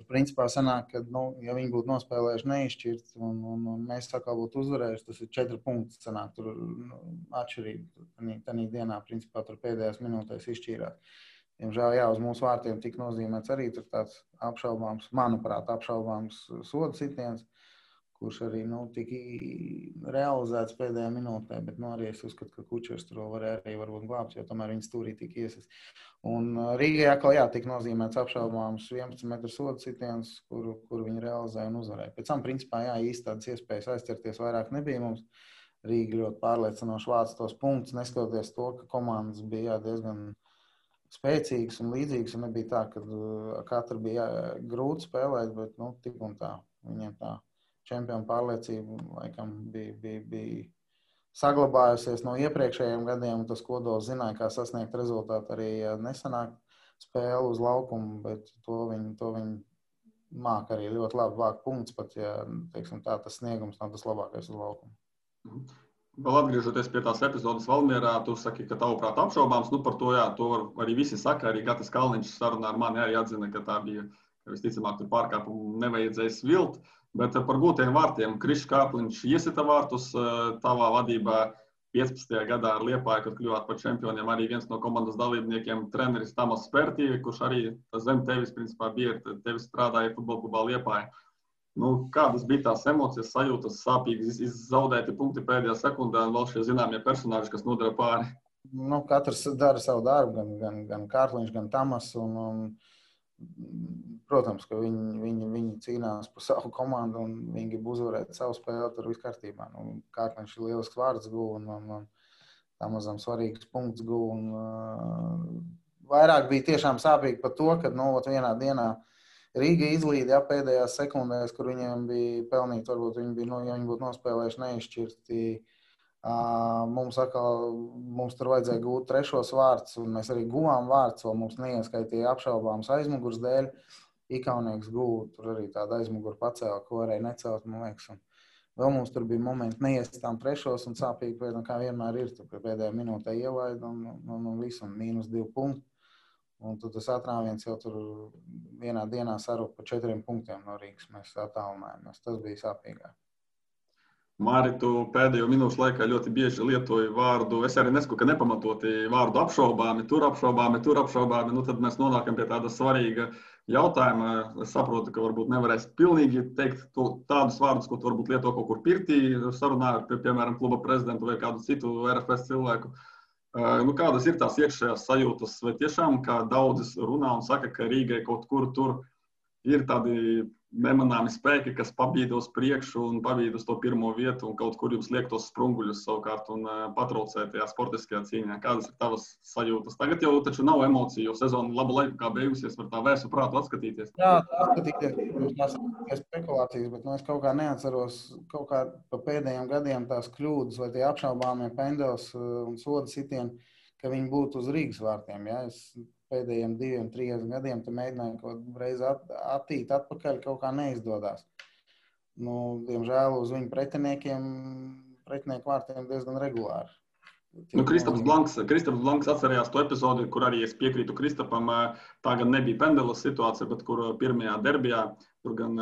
principā sanāk, ka, ja viņi būtu nospēlējuši neizšķirts un mēs atkal būtu uzvarējuši, tas ir 4 punkti, sanāk, tur atšķirība. Tanī dienā, principā, tur pēdējās minūtēs izšķīrās. Diemžēl, jā, uz mūsu vārtiem tik nozīmēts arī tur tāds apšaubāms, manuprāt, apšaubāms sodu sitiens, kurš arī tika realizēts pēdējā minūtē, bet arī es uzskatu, ka Kučers tur varēja arī varbūt glābt, jo tomēr viņa stūrī tika iesaist. Un Rīgai atkal, jā, tika nozīmēts apšaubāms 11 metru sodu sitiens, kuru viņi realizēja un uzvarēja. Pēc tam, principā, jā, īsti tādas iespējas aizķerties vairāk nebija mums. Rīga ļoti pārliecinoši vāca tos punktus, neskatoties to, ka komandas bija diezgan spēcīgas un līdzīgas, un nebija tā, ka katra bija grūti spēlēt, bet, tik un tā, viņiem tā čempionu pārliecība laikam bija saglabājusies no iepriekšējiem gadiem, un tas kodols zināja, kā sasniegt rezultātu arī nesanāk spēli uz laukumu, bet to viņi māk arī ļoti labi vākt punktus, pat ja, teiksim tā, tas sniegums nav tas labākais uz laukumu. Vēl atgriežoties pie tās epizodes Valmierā, tu saki, ka tavuprāt apšaubāms, par to, jā, to arī visi saka, arī Gatis Kalniņš sarunā ar mani arī atzina, ka tā bija, ka visticamāk tur pārkāpumu nevajadzēja svilt. Bet par gūtiem vārtiem Krišs Kāpliņš iesita vārtus tavā vadībā 15. gadā ar Liepāju, kad kļuvāt par čempioniem. Arī viens no komandas dalībniekiem treneris Tamas Spērtīvi, kurš arī zem tevis, principā, bija, tevis strādāja futbolklubā Liepāja. Kādas bija tās emocijas, sajūtas, sāpīgas, zaudēti punkti pēdējā sekundē un vēl šie zināmie personāži, kas nodara pāri? Katrs dara savu darbu, gan Kārliņš, gan Tamas. Protams, ka viņi cīnās par savu komandu un viņi grib uzvarēt savu spēli, tur viss kārtībā. Kārliņš ir lielisks vārds guva un Tamazam svarīgs punkts guva. Vairāk bija tiešām sāpīgi par to, ka vienā dienā Rīga izlīda pēdējās sekundēs, kur viņiem bija pelnīti, varbūt ja viņi būtu nospēlējuši neizšķirti. Mums tur vajadzēja gūt 3. vārds, un mēs arī guvām vārds, vēl mums neieskaitīja apšaubāms aizmugurs dēļ. Ikaunieks guva, tur arī tāda aizmugura pacēla, ko varēja necelt, man liekas. Un vēl mums tur bija momenti neiestām 3. un sāpīgi, kā vienmēr ir, tur pēdējā minūtē ielaida un visu, un -2 punkti. Un tad tas atrāviens jau tur vienā dienā sarūk pa 4 punktiem no Rīgas. Mēs attālinājāmies. Tas bija sāpīgāk. Māri, tu pēdējo minūšu laikā ļoti bieži lietoji vārdu, es arī nesaku, ka nepamatoti vārdu apšaubāmi, tur apšaubāmi. Tad mēs nonākam pie tāda svarīga jautājuma. Es saprotu, ka varbūt nevarēs pilnīgi teikt tādus vārdus, ko tu varbūt lieto kaut kur pirtī, sarunā ar, piemēram, kluba prezidentu vai kādu citu RFS cilvēku. Kādas ir tās iekšējās sajūtas? Vai tiešām, kā daudzi runā un saka, ka Rīgai kaut kur tur ir tādi nemanāmi spēki, kas pabīda uz priekšu un pabīda uz to pirmo vietu un kaut kur jums liek tos sprunguļus savukārt un patraucē tajā sportiskajā cīņā? Kādas ir tavas sajūtas? Tagad jau taču nav emociju, jo sezona labu laiku kā beigusies, var tā vērsu prātu atskatīties. Jā, atskatīties, tās ir spekulācijas, bet es kaut kā neatceros kaut kā pa pēdējiem gadiem tās kļūdas vai tie apšaubāmie pendels un soda sitieni, ka viņi būtu uz Rīgas vārtiem. Ja? Es pēdējiem 2-3 gadiem mēģināju kaut reizi attīt atpakaļ, kaut kā neizdodas. Diemžēl uz viņu pretinieku vārtiem diezgan regulāri. Kristaps Blanks atcerējās to epizodi, kur arī es piekrītu Kristapam. Tā gan nebija pendelas situācija, bet kur pirmajā derbijā, tur gan,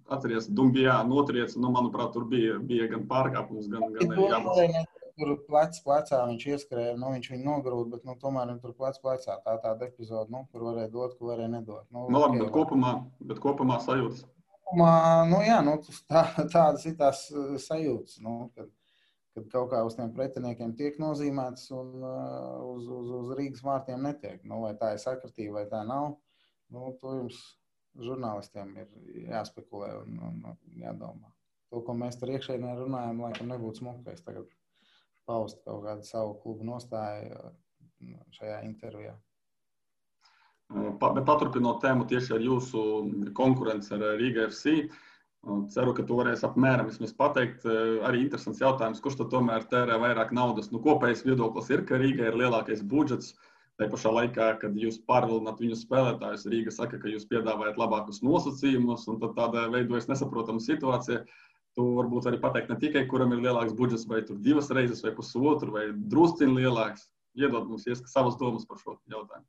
atceries, Dumbijā notriec, manuprāt, tur bija gan pārkāpums, gan arī jābūt. Tur plecā viņš ieskrēja, viņš viņu nogrūda, bet tomēr viņš tur plecā. Tāda epizode, kur varēja dot, ko varēja nedot. Labi, bet kopumā sajūtas? Tādas ir tās sajūtas, kad kaut kā uz tiem pretiniekiem tiek nozīmēts un uz Rīgas vārtiem netiek. Vai tā ir sakritība, vai tā nav, to jums žurnālistiem ir jāspekulē un jādomā. To, ko mēs tur iekšēnē runājam, laikam nebūtu smukais tagad paust kaut kādu savu klubu nostāju šajā intervijā. Bet paturpinot tēmu tieši ar jūsu konkurenci ar Rīga FC, ceru, ka tu varēsi apmēram vismaz pateikt. Arī interesants jautājums, kurš tad tomēr tērē vairāk naudas? Kopējais viedoklis ir, ka Rīga ir lielākais budžets. Tā pašā laikā, kad jūs pārvilināt viņu spēlētājus, Rīga saka, ka jūs piedāvājat labākus nosacījumus, un tad tāda veidojas nesaprotama situācija. Tu varbūt arī pateikt ne tikai, kuram ir lielāks budžets, vai tur 2 reizes, vai pusotru, vai drusciņ lielāks. Iedod mums savas domas par šo jautājumu.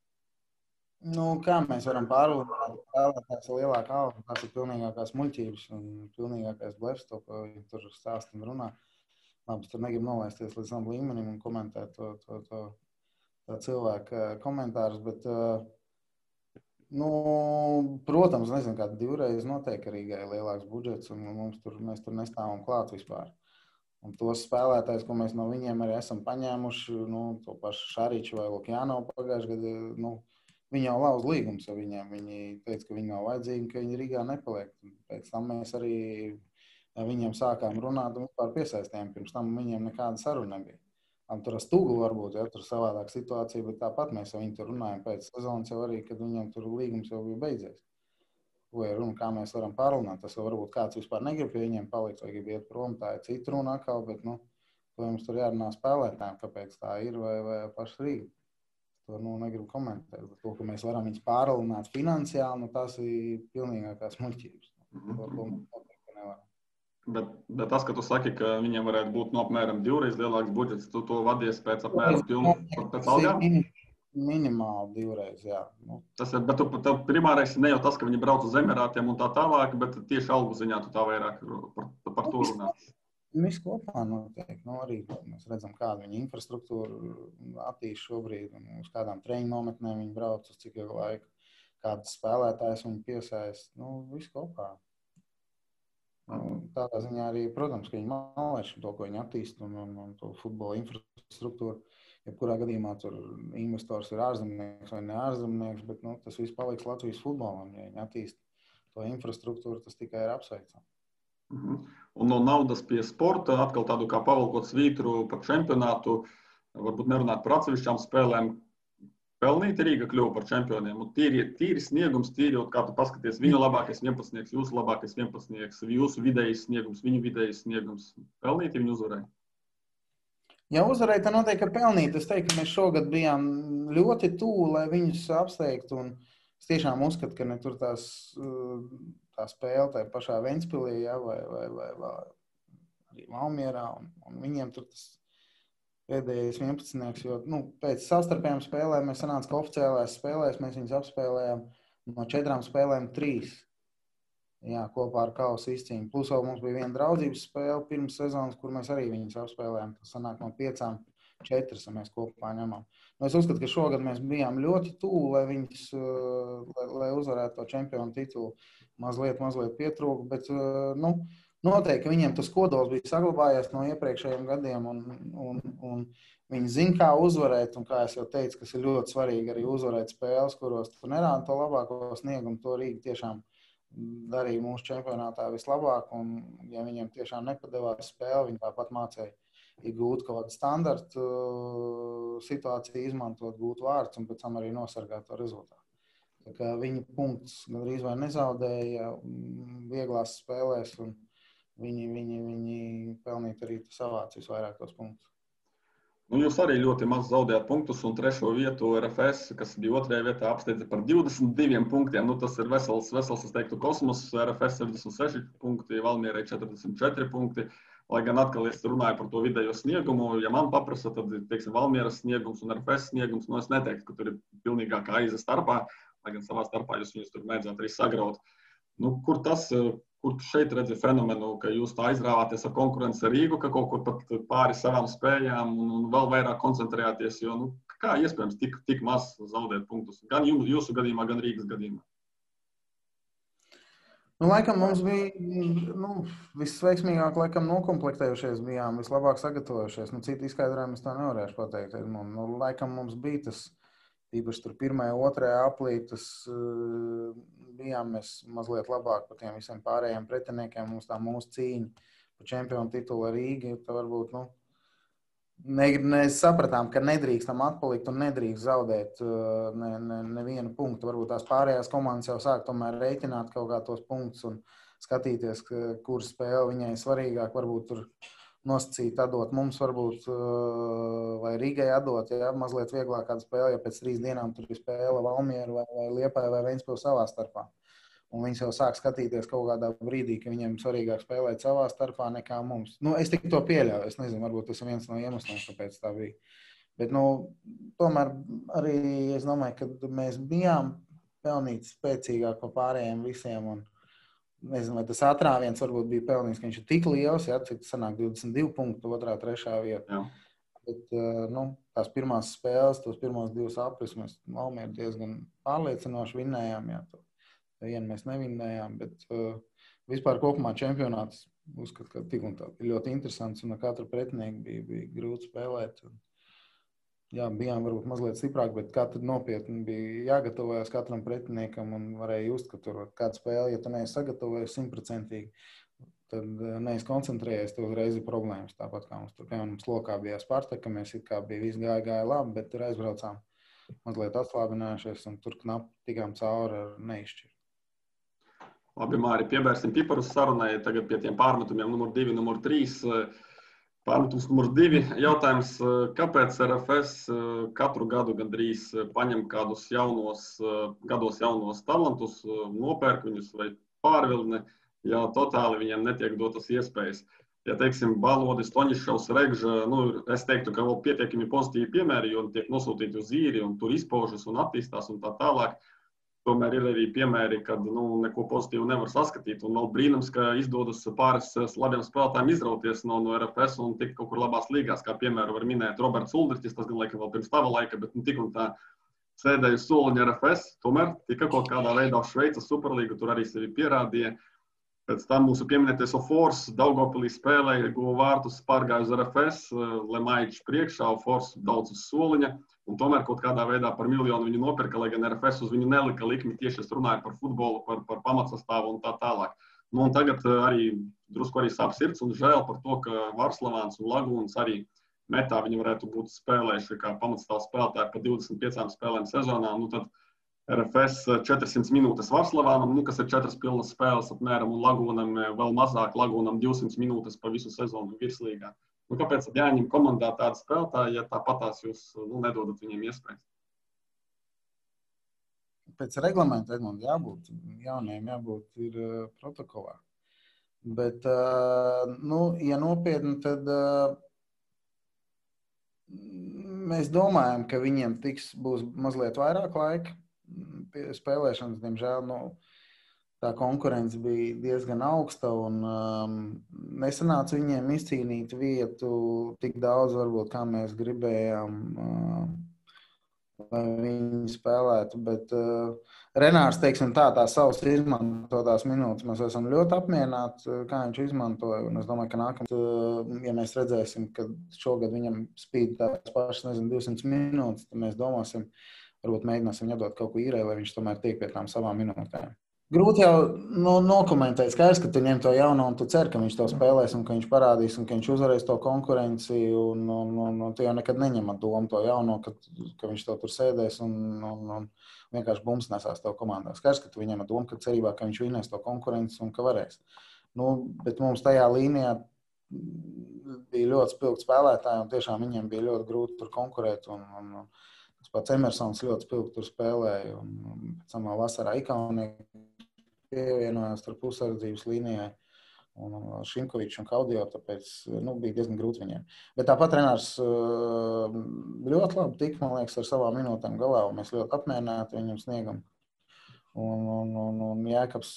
Kā mēs varam pārlūdāt spēlētājs lielākā alga? Tas ir pilnīgākās muļķības un pilnīgākais blefs, to, ko viņi tur stāst un runā. Labi, tur negribu nolaisties līdz tam līmenim un komentēt to cilvēku komentārus, bet, protams, nezinu, kāda divreiz noteikti Rīgai lielāks budžets un mēs tur nestāvam klāt vispār. Un tos spēlētājs, ko mēs no viņiem arī esam paņēmuši, to pašu Šariču vai Lukjānovu pagājušajā gadā, viņi jau lauz līgums ar viņiem. Viņi teica, ka viņi nav vajadzīgi, ka viņi Rīgā nepaliek. Pēc tam mēs arī viņiem sākām runāt un vispār piesaistījām. Pirms tam viņiem nekāda saruna nebija. Tur ar Stūgu varbūt, tur savādāk situācija, bet tāpat mēs ar viņu tur runājam pēc sezonas jau arī, kad viņiem tur līgums jau bija beidzies. Ko ir runa, kā mēs varam pārunāt. Tas varbūt kāds vispār negrib pie viņiem palikt vai grib iet prom. Tā ir cita runa atkal, bet, to jums tur jārunā spēlētājiem, kāpēc tā ir vai paši Rīga. To negribu komentēt. To, ka mēs varam viņus pārlunāt finansiāli, tas ir pilnīgākās muļķības. To nevaram. Bet tas, ka tu saki, ka viņiem varētu būt apmēram divreiz lielāks budžets, tu to vadies pēc apmēram pēc algām? Minimāli divreiz, jā. Tas ir, bet tev primārais ne jau tas, ka viņi brauc uz Emirātiem un tā tālāk, bet tieši algu ziņā tu tā vairāk par to runā. Viss kopā notiek. Arī mēs redzam, kāda viņa infrastruktūra attīst šobrīd, un uz kādām treniņu nometnēm viņi brauc, uz cik ilgu laiku, kādas spēlētājas viņi piesaist. Viss kopā. Tādā ziņā arī, protams, ka viņi malēš to, ko viņi attīst, un to futbola infrastruktūru. Jebkurā gadījumā tur investors ir ārzemnieks vai ne ārzemnieks, bet tas viss paliks Latvijas futbolam. Ja viņi attīst to infrastruktūru, tas tikai ir apsveicami. Un no naudas pie sporta, atkal tādu kā pavalkot svītru par čempionātu, varbūt nerunāt par atsevišķām spēlēm, pelnīti Rīga kļuva par čempioniem. Un tīri sniegums, kā tu paskaties, viņu labākais 11, jūsu labākais 11, jūsu vidējais sniegums, viņu vidējais sniegums. Pelnīti viņi uzvarēja? Ja uzvarēja, tad noteikti, ka pelnīt. Es teiktu, ka mēs šogad bijām ļoti tuvu, lai viņus apsteigtu. Un es tiešām uzskatu, ka ne tur tā spēle tā pašā Ventspilī, vai arī Valmierā. Un viņiem tur tas pēdējais 11, jo pēc savstarpējām spēlēm mēs sanāca, ka oficiālās spēlēs mēs viņus apspēlējām no 4 spēlēm 3. Jā, kopā ar kausa izcīņu. Plus vēl mums bija viena draudzības spēle pirms sezonas, kur mēs arī viņus apspēlējām. Tas sanāk no 5, 4 mēs kopā ņemam. Es uzskatu, ka šogad mēs bijām ļoti tuvu, lai viņus, lai uzvarētu to čempionu titulu. Mazliet pietrūka, bet noteikti, ka viņiem tas kodols bija saglabājies no iepriekšējiem gadiem, un viņi zina, kā uzvarēt, un kā es jau teicu, kas ir ļoti svarīgi arī uzvarēt spēles, kuros tu nerādi to labāko sniegumu, to Rīga tiešām darīja mūsu čempionātā vislabāk, un ja viņiem tiešām nepadevās spēle, viņi tāpat mācēja iegūt kaut kādu standartu situāciju, izmantot, gūt vārds un pēc tam arī nosargāt to rezultātu. Tā kā viņi punktus gandrīz vai nezaudēja vieglās spēlēs, un viņi pelnīt arī savāc visvairāk tos punktus. Jūs arī ļoti maz zaudējāt punktus, un 3. vietu RFS, kas bija 2. vietā, apsteidza par 22 punktiem. Tas ir vesels, es teiktu, kosmos. RFS 76 punkti, Valmierai 44 punkti. Lai gan atkal es runāju par to vidējo sniegumu, ja man paprasa, tad, teiksim, Valmieras sniegums un RFS sniegums, es neteiktu, ka tur ir pilnīgākā aiza starpā, lai gan savā starpā jūs viņus tur mēdzāt arī sagraut. Kur šeit redzi fenomenu, ka jūs tā aizrāvāties ar konkurenci ar Rīgu, ka kaut kur pat pāri savām spējām un vēl vairāk koncentrējāties, jo kā iespējams tik maz zaudēt punktus? Gan jūsu gadījumā, gan Rīgas gadījumā. Laikam mums bija visveiksmīgāk nokomplektējušies bijām, vislabāk sagatavojušies. Citu izskaidrojumu es tā nevarēšu pateikt. Laikam mums bija tas, īpaši tur 1., 2. aplī, tas bijām mēs mazliet labāk par tiem visiem pārējiem pretiniekiem. Mums tā mūsu cīņa par čempionu titulu ar Rīgu, tā varbūt, mēs sapratām, ka nedrīkstam atpalikt un nedrīkst zaudēt nevienu punktu. Varbūt tās pārējās komandas jau sāk tomēr rēķināt kaut kā tos punktus un skatīties, kur spēle viņai svarīgāk, varbūt tur nosacīt atdot mums, varbūt, vai Rīgai atdot, ja mazliet vieglāk kādu spēli, ja pēc 3 dienām tur ir spēle Valmieru vai Liepāju vai Ventspili savā starpā. Un viņi jau sāk skatīties kaut kādā brīdī, ka viņiem svarīgāk spēlēt savā starpā nekā mums. Es tik to pieļauju, es nezinu, varbūt tas ir viens no iemesliem, kāpēc tā bija. Bet, tomēr arī es domāju, ka mēs bijām pelnīt spēcīgāk par pārējiem visiem. Un, nezinu, vai tas atrāviens varbūt bija pelnīts, ka viņš ir tik liels, ja, cik sanāk 22 punktu, 2., 3. vieta. Bet, tās pirmās spēles, tos pirmos 2 aplis mēs Valmieru diezgan pārliecinoši vinnējām. Jā, vienu mēs nevinnējām, bet vispār kopumā čempionāts uzskatu, ka tik un tā ir ļoti interesants un ar katru pretinieku bija grūti spēlēt. Jā, bijām varbūt mazliet stiprāk, bet katru nopietni bija jāgatavojas katram pretiniekam un varēja just, ka tur kāda spēle, ja tu neesi sagatavojies 100%, tad neesi koncentrējies, tev uzreiz ir problēmas. Tāpat kā mums tur, piemēram, Slokā bija Spartaka, mēs it kā bija viss gāja labi, bet tur aizbraucām mazliet atslābinājušies un tur knapi tikām cauri ar neizšķiru. Labi, Māri, piebērsim piparus sarunai tagad pie tiem pārmetumiem numur 2, numur 3. Pārmetums numur 2. Jautājums, kāpēc RFS katru gadu gandrīz paņem kādus gados jaunos talantus, nopērk viņus vai pārvilni, ja totāli viņiem netiek dotas iespējas. Ja, teiksim, Balodis, Toņišovs, Regža, es teiktu, ka vēl pietiekami pozitīvi piemēri, jo tiek nosūtīti uz īri un tur izpaužas un attīstās un tā tālāk. Tomēr ir arī piemēri, kad neko pozitīvu nevar saskatīt. Un vēl brīnums, ka izdodas pāris labiem spēlētājiem izrauties no RFS un tikt kaut kur labās līgās. Kā piemēru var minēt Roberts Uldriķis, tas gan laikam vēl pirms tava laika, bet tik un tā sēdēja uz soliņa RFS. Tomēr tika kaut kādā veidā uz Šveicas Superlīgu, tur arī sevi pierādīja. Pēc tam mūsu pieminētais Ofors Daugavpilī spēlēja, guva vārtus, pārgāja uz RFS, Lemaičs priekšā, Ofors daudz uz soliņa. Un tomēr kaut kādā veidā par 1 miljonu viņu nopirka, lai gan RFS uz viņu nelika likmi, tieši es runāju par futbolu, par pamatsastāvu un tā tālāk. Un tagad arī drusku arī sāp sirds un žēl par to, ka Varslavāns un Lagūns arī metā viņi varētu būt spēlējuši kā pamatstāvu spēlētāji pa 25 spēlēm sezonā. Tad RFS 400 minūtes Varslavānam, kas ir 4 pilnas spēles apmēram, un Lagūnam vēl mazāk, Lagūnam 200 minūtes pa visu sezonu virslīgā. Kāpēc jāņem komandā tāda spēlētāja, ja tāpatās jūs nedodat viņiem iespējas? Pēc reglamenta, Edmund, jauniem jābūt ir protokolā. Bet, ja nopietni, tad mēs domājam, ka viņiem būs mazliet vairāk laika spēlēšanas, diemžēl, tā konkurence bija diezgan augsta un nesanāca viņiem izcīnīt vietu tik daudz, varbūt, kā mēs gribējām, lai viņi spēlētu. Bet Renārs, teiksim tās savas izmantotās minūtes, mēs esam ļoti apmierināti, kā viņš izmantoja. Un es domāju, ka nākamā, ja mēs redzēsim, ka šogad viņam spīd tās pašas, 200 minūtes, tad mēs domāsim, varbūt mēģināsim viņu dot kaut ko īrē, lai viņš tomēr tiek pie tām savām minūtēm. Grūti jau nokomentēt, skaidrs, ka tu ņem to jauno un tu cer, ka viņš to spēlēs un ka viņš parādīs un ka viņš uzvarēs to konkurenci un tu jau nekad neņem ar domu to jauno, ka viņš to tur sēdēs un vienkārši bums nesās tev komandā. Skaidrs, ka tu viņam ar domu, ka cerībā, ka viņš vinnēs to konkurenci un ka varēs. Bet mums tajā līnijā bija ļoti spilgti spēlētāji un tiešām viņiem bija ļoti grūti tur konkurēt un tas pats Emersons ļoti spilgti tur spēlēja un pēc tam vasarā Ikaunieki pievienojās ar pusardzības līnijai un Šimkovičs un Kaudio, tāpēc bija diezgan grūti viņiem. Bet tāpat Renārs ļoti labi tika, man liekas, ar savām minūtēm galā, un mēs ļoti apmierināti viņam sniegam. Un Jēkabs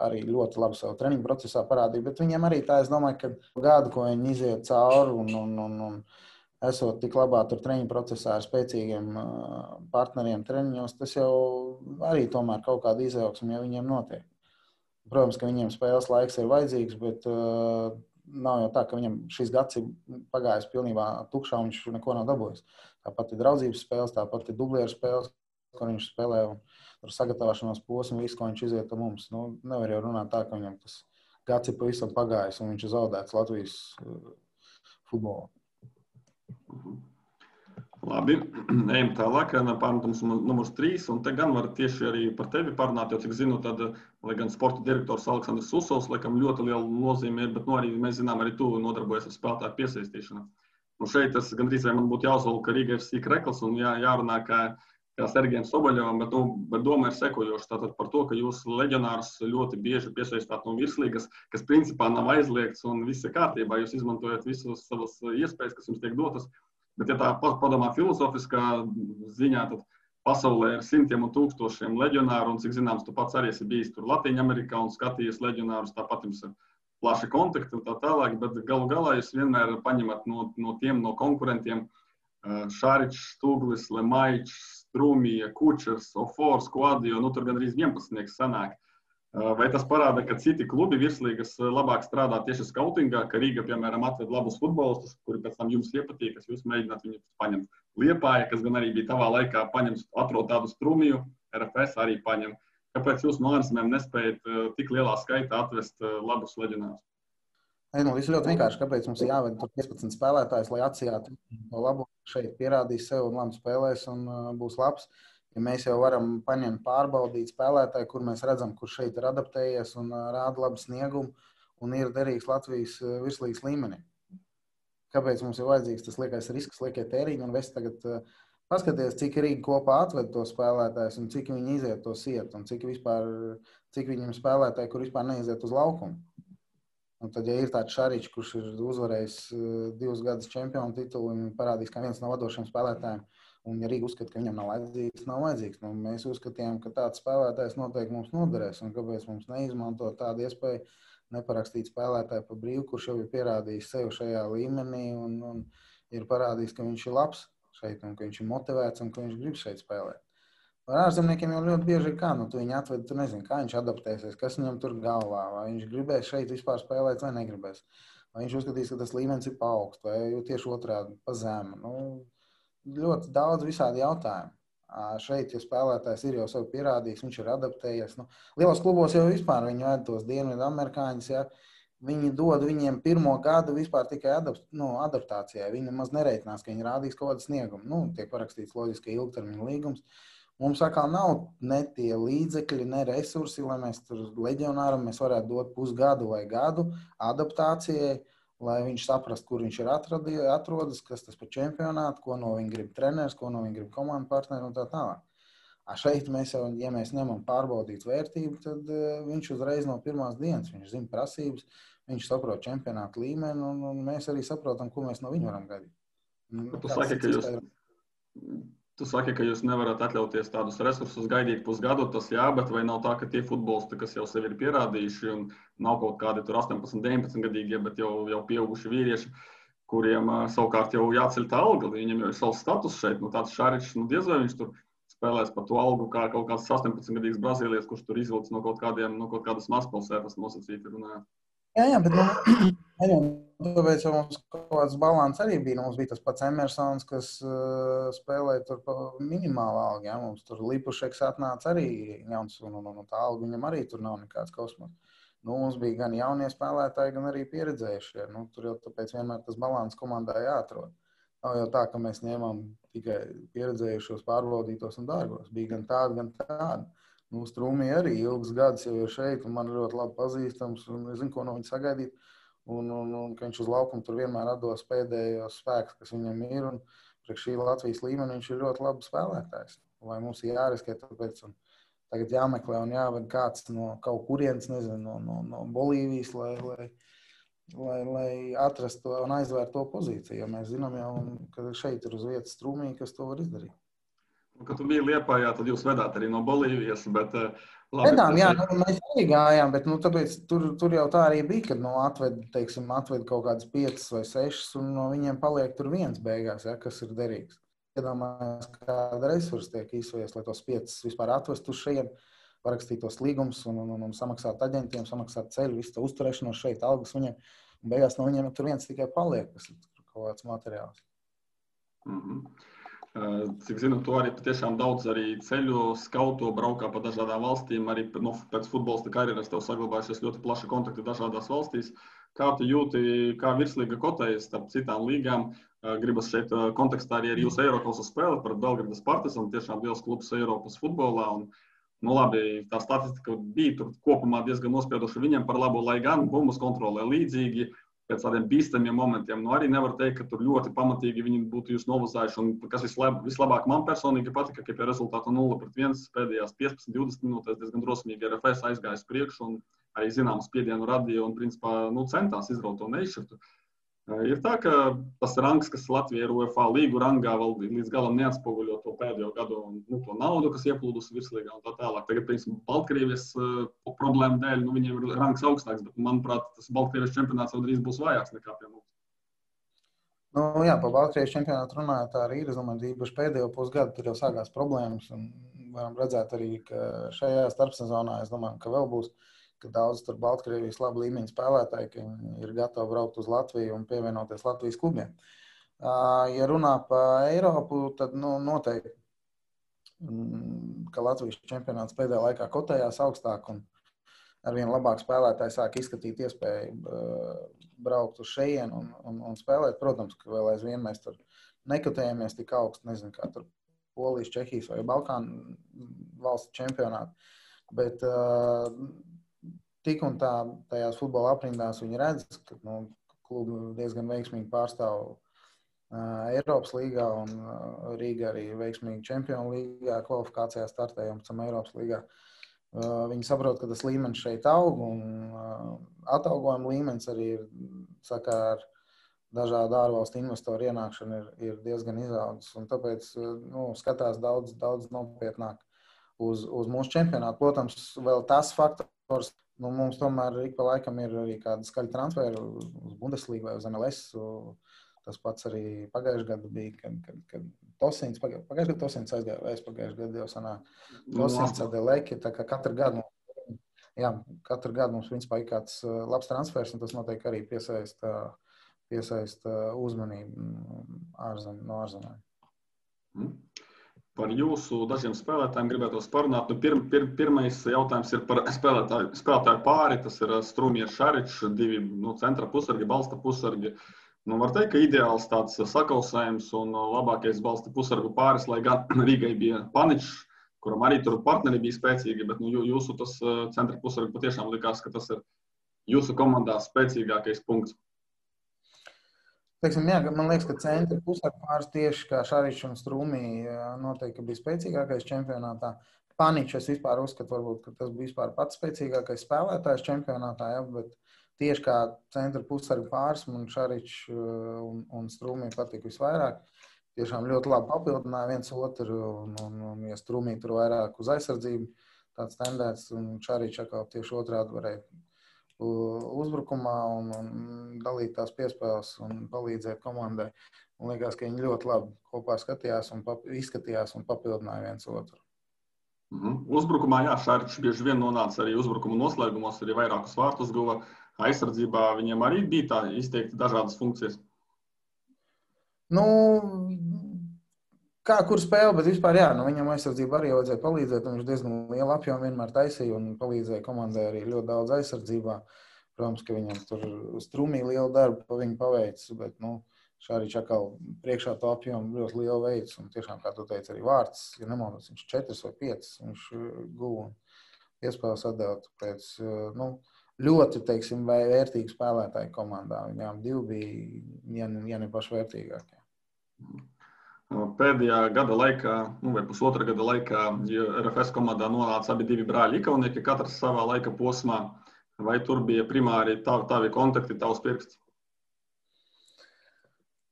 arī ļoti labi savu treniņu procesā parādīja, bet viņiem arī tā, es domāju, ka gadu, ko viņi iziet cauri un esot tik labā tur treniņu procesā ar spēcīgiem partneriem treniņos, tas jau arī tomēr kaut kāda izaugsme, ja viņiem notiek. Protams, ka viņiem spēles laiks ir vajadzīgs, bet nav jau tā, ka viņam šis gads ir pagājis pilnībā tukšā un viņš neko nav dabūjis. Tāpat ir draudzības spēles, tāpat ir dublieru spēles, ko viņš spēlē un tur sagatavošanās posmu, visu, ko viņš iziet ar mums. Nevar jau runāt tā, ka viņam tas gads ir pavisam pagājis un viņš ir zaudēts Latvijas futbolā. Labi, ejam tālāk, pārmetums numurs 3, un te gan var tieši arī par tevi parunāt, jo, cik zinu, tad, lai gan sporta direktors Aleksandrs Susovs, laikam ļoti liela nozīme ir, bet arī mēs zinām, arī tu nodarbojies ar spēlētāju piesaistīšanu. Šeit tas gandrīz vai man būtu jāuzvalka Riga FC Krekls un jārunā kā Sergejam Soboļovam, bet doma ir sekojoša tātad par to, ka jūs leģionārus ļoti bieži piesaistāt no virslīgas, kas principā nav aizliegts un viss ir kārtībā, jūs izmantojat visus savas iespējas, kas jums tiek dotas. Bet, ja tā padomā filozofiskā ziņā, tad pasaulē ir simtiem un tūkstošiem leģionāru, un, cik zināms, tu pats arī esi bijis tur Latvijā-Amerikā un skatījies leģionārus, tāpat jums ir plaši kontakti un tā tālāk, bet galu galā jūs vienmēr paņemat no konkurentiem Šaričs, Stuglis, Lemaičs, Strūmija, Kučers, Ofors, Kuadio, tur gan arī 11 sanāk. Vai tas parāda, ka citi klubi virslīgas labāk strādā tieši skautingā, ka Rīga, piemēram, atved labus futbolistus, kuri pēc tam jums iepatīk, kas jūs mēģināt viņus paņemt? Liepāja, kas gan arī bija tavā laikā, atrod tādu Strūmiju, RFS arī paņem. Kāpēc jūs no ārzemēm nespējat tik lielā skaitā atvest labus leģionārus? Viss ļoti vienkārši, kāpēc mums ir jāved 15 spēlētājs, lai atsijātu to labu, šeit pierādīs sev un labi spēlēs un būs labs. Ja mēs jau varam paņemt pārbaudīt spēlētāju, kur mēs redzam, kurš šeit ir adaptējies un rāda labu sniegumu un ir derīgs Latvijas virslīgas līmenī. Kāpēc mums ir vajadzīgs tas liekais risks, liekie tēriņi un visi tagad paskaties, cik Rīga kopā atved to spēlētājus un cik viņi iziet to sietu un cik viņiem spēlētāji, kur vispār neiziet uz laukumu. Un tad, ja ir tāds Šaričs, kurš ir uzvarējis 2 gadus čempionu titulu un parādīs, kā viens no vadošiem spēlētājiem, un ja Rīga uzskata, ka viņam nav vajadzīgs. Mēs uzskatījām, ka tāds spēlētājs noteikti mums noderēs, un kāpēc mums neizmantot tādu iespēju neparakstīt spēlētāju pa brīvu, kurš jau ir pierādījis sev šajā līmenī un ir parādījis, ka viņš ir labs šeit un ka viņš ir motivēts un ka viņš grib šeit spēlēt. Ar ārzemniekiem jau ļoti bieži ir kā, tu viņu atved, tu nezini, kā viņš adaptēsies, kas viņam tur galvā, vai viņš gribēs šeit vispār spēlēt vai negribēs. Vai viņš uzskatīs, ka tas līmenis ir pa augstu vai tieši otrādi pa zemu. Ļoti daudz visādi jautājumu. Šeit, ja spēlētājs ir jau sev pierādījis, viņš ir adaptējies. Lielos klubos jau vispār viņi ved tos dienvidu amerikāņus, ja viņi dod viņiem pirmo gadu vispār tikai adaptācijai. Viņi nemaz nereitinās, ka viņi rādīs kaut kādu sniegumu. Tiek parakstīts loģiski ilgtermiņa līgums. Mums atkal nav ne tie līdzekļi, ne resursi, lai mēs tur leģionāram mēs varētu dot pusgadu vai gadu adaptācijai, lai viņš saprastu, kur viņš ir atrodas, kas tas par čempionātu, ko no viņa grib treneris, ko no viņa grib komandu partneri un tā tālāk. Šeit mēs jau, ja mēs ņemam pārbaudīt vērtību, tad viņš uzreiz no pirmās dienas, viņš zina prasības, viņš saprot čempionātu līmeni un mēs arī saprotam, ko mēs no viņa varam gaidīt. Tu saki, ka jūs nevarat atļauties tādus resursus gaidīt pusgadu, tas jā, bet vai nav tā, ka tie futbolisti, kas jau sevi ir pierādījuši un nav kaut kādi tur 18, 19 gadīgie, bet jau pieauguši vīrieši, kuriem savukārt jau jāceļ tā alga, viņiem jau ir savs status šeit, tāds Šaričs, diez vai viņš tur spēlēs par to algu kā kaut kāds 18-gadīgs brazīlietis, kurš tur izvilcis no kaut kādas mazpilsētas nosacīti runājot. Jā, bet tāpēc jau mums kaut kāds balans arī bija. Mums bija tas pats Emersons, kas spēlēja tur pa minimālu algu. Ja? Mums tur Lipušeks atnāca arī jauns, un tā alga viņam arī tur nav nekāds kosmos. Mums bija gan jaunie spēlētāji, gan arī pieredzējušie. Tur jau tāpēc vienmēr tas balans komandā jāatrod. Nav jau tā, ka mēs ņēmām tikai pieredzējušos, pārbaudītos un dārgos. Bija gan tādi, gan tādi. Strūmija arī ilgus gadus jau ir šeit, un man ļoti labi pazīstams, un es zinu, ko no viņa sagaidīt, un ka viņš uz laukumu tur vienmēr atdos pēdējos spēkus, kas viņam ir, un priekš šī Latvijas līmeni viņš ir ļoti labi spēlētājs. Vai mums ir jāriskē tāpēc, un tagad jāmeklē un jāved kāds no kaut kurienes, nezinu, no Bolīvijas, lai atrastu to un aizvērtu to pozīciju, jo mēs zinām jau, ka šeit ir uz vietas Strūmija, kas to var izdarīt. Kad tu biji Liepājā, tad jūs vedāt arī no Bolīvijas, bet labi. Vedām, jā, mēs arī gājām, bet tāpēc tur jau tā arī bija, kad atved kaut kādas 5 vai 6, un no viņiem paliek tur viens beigās, ja, kas ir derīgs. Iedomājies, kāda resursa tiek izsvies, lai tos 5 vispār atvestu uz šeit, parakstīt tos līgumus un samaksāt aģentiem, samaksāt ceļu, visu to uzturēšanos šeit, algas viņiem, un beigās no viņiem tur viens tikai paliek, kas ir kaut kāds materiāls. Cik zinu, tu arī patiešām daudz arī ceļu, skauto, braukā pa dažādām valstīm, arī pēc futbolista karjeras tev saglabājušies ļoti plaši kontakti dažādās valstīs. Kā tu jūti, kā virslīga kotējas starp citām līgām? Gribas šeit kontekstā arī ar jūsu Eiropas spēli par Belgradas Partizanu, tiešām liels klubs Eiropas futbolā. Un, labi, tā statistika bija tur kopumā diezgan nospiedoša viņiem par labu, lai gan bumbas kontrolē līdzīgi. Pēc tādiem bīstamiem momentiem. Arī nevar teikt, ka tur ļoti pamatīgi viņi būtu jūs novazājuši. Un kas vislabāk man personīgi patika, ka pie rezultāta 0-1 pēdējās 15-20 minūtēs diezgan drosmīgi RFS aizgājas priekšu un arī zināmu spiedienu radīja un principā centās izraut to neizšķirtu. Ir tā, ka tas rangs, kas Latvijā ir UEFA līgu rangā, vēl līdz galam neatspoguļo to pēdējo gadu to naudu, kas ieplūdusi virslīgā un tā tālāk. Tagad, piemēram, Baltkrievijas problēmu dēļ, viņiem ir rangs augstāks, bet, manuprāt, tas Baltkrievijas čempionāts vēl drīz būs vājāks nekā pie mums. Nu, jā, par Baltkrievijas čempionātu runājot, tā arī ir. Es domāju, īpaši pēdējo pusgadu tur jau sākās problēmas. Varam redzēt arī, ka šajā starpsezonā, es domāju, ka vēl būs, ka daudz tur Baltkrievijas labu līmeņu spēlētāji, ka ir gatavi braukt uz Latviju un pievienoties Latvijas klubiem. Ja runā par Eiropu, tad noteikti, ka Latvijas čempionāts pēdējā laikā kotējās augstāk un arvien labāk spēlētāji sāk izskatīt iespēju braukt uz šejienu un spēlēt. Protams, ka vēl aizvien mēs tur nekotējamies tik augstu, nezinu, kā tur Polijas, Čehijas vai Balkānu valstu čempionāti. Bet tik un tā tajās futbola aprindās viņi redz, ka klubi diezgan veiksmīgi pārstāv Eiropas līgā un Rīga arī veiksmīgi Čempionu līgā kvalifikācijā startēja un pēc tam Eiropas līgā. Viņi saprot, ka tas līmenis šeit aug un atalgojuma līmenis arī ir, saka, ar dažādu ārvalstu investoru ienākšanu ir diezgan izaudzis. Un tāpēc skatās daudz nopietnāk uz mūsu čempionātu. Protams, vēl tas faktors, mums tomēr ik pa laikam ir arī kāda skaļa transferi uz Bundesligu vai uz MLS. Tas pats arī pagājušajā gadā bija, kad Tosins, pagājušajā gadā Tosins aizgāja, vai pagājušajā gadā jau sanāk Tosins, Adeleki, tā kā katru gadu mums principā ir kāds labs transfers, un tas noteikti arī piesaista uzmanību no ārzemēm. Par jūsu dažiem spēlētājiem gribētos parunāt. Pirmais jautājums ir par spēlētāju pāri. Tas ir Strūmieris, Šaričs, divi centra pusargi, balsta pusargi. Var teikt, ka ideāls tāds sakausējums un labākais balsta pusargu pāris, lai gan Rīgai bija Paničs, kuram arī tur partneri bija spēcīgi, bet jūsu tas centra pusargi patiešām likās, ka tas ir jūsu komandā spēcīgākais punkts. Teiksim, jā, man liekas, ka centra pusargu pāris tieši kā Šaričs un Strūmī noteikti bija spēcīgākais čempionātā. Paničs es vispār uzskatu, varbūt, ka tas bija vispār pats spēcīgākais spēlētājs čempionātā, ja, bet tieši kā centra pusargu pāris man Šaričs un Strūmī patika visvairāk. Tiešām ļoti labi papildināja viens otru, un ja Strūmī tur vairāk uz aizsardzību tāds tendēts, un Šaričs atkal tieši otrādi varēja uzbrukumā un dalīt tās piespēles un palīdzēt komandai. Man liekas, ka viņi ļoti labi kopā skatījās un izskatījās un papildināja viens otru. Uzbrukumā, jā, Šaričs bieži vien nonāca arī uzbrukuma noslēgumos, arī vairākus vārtus guva. Aizsardzībā viņiem arī bija tā izteikti dažādas funkcijas. Kā kur spēle, bet vispār jā, viņam aizsardzība arī vajadzēja palīdzēt. Viņš diezgan lielu apjomu vienmēr taisīja un palīdzēja komandai arī ļoti daudz aizsardzībā. Protams, ka viņam tur Strūmī lielu darbu pa viņu paveicis, bet Šaričs atkal priekšā to apjomu ļoti lielu veids. Un tiešām, kā tu teici, arī vārds, ja nemaldos, viņš 4 vai 5 viņš guva un iespējas atdevot pēc, ļoti, teiksim, vērtīgi spēlētāji komandā. Viņām divi bija, ja ne paši vērtīgākie. Pēdējā gada laikā, vai pusotra gada laikā, RFS komandā nonāca abi divi brāļi Ikaunieki, katrs savā laika posmā. Vai tur bija primāri tavi kontakti, tavs pirksts?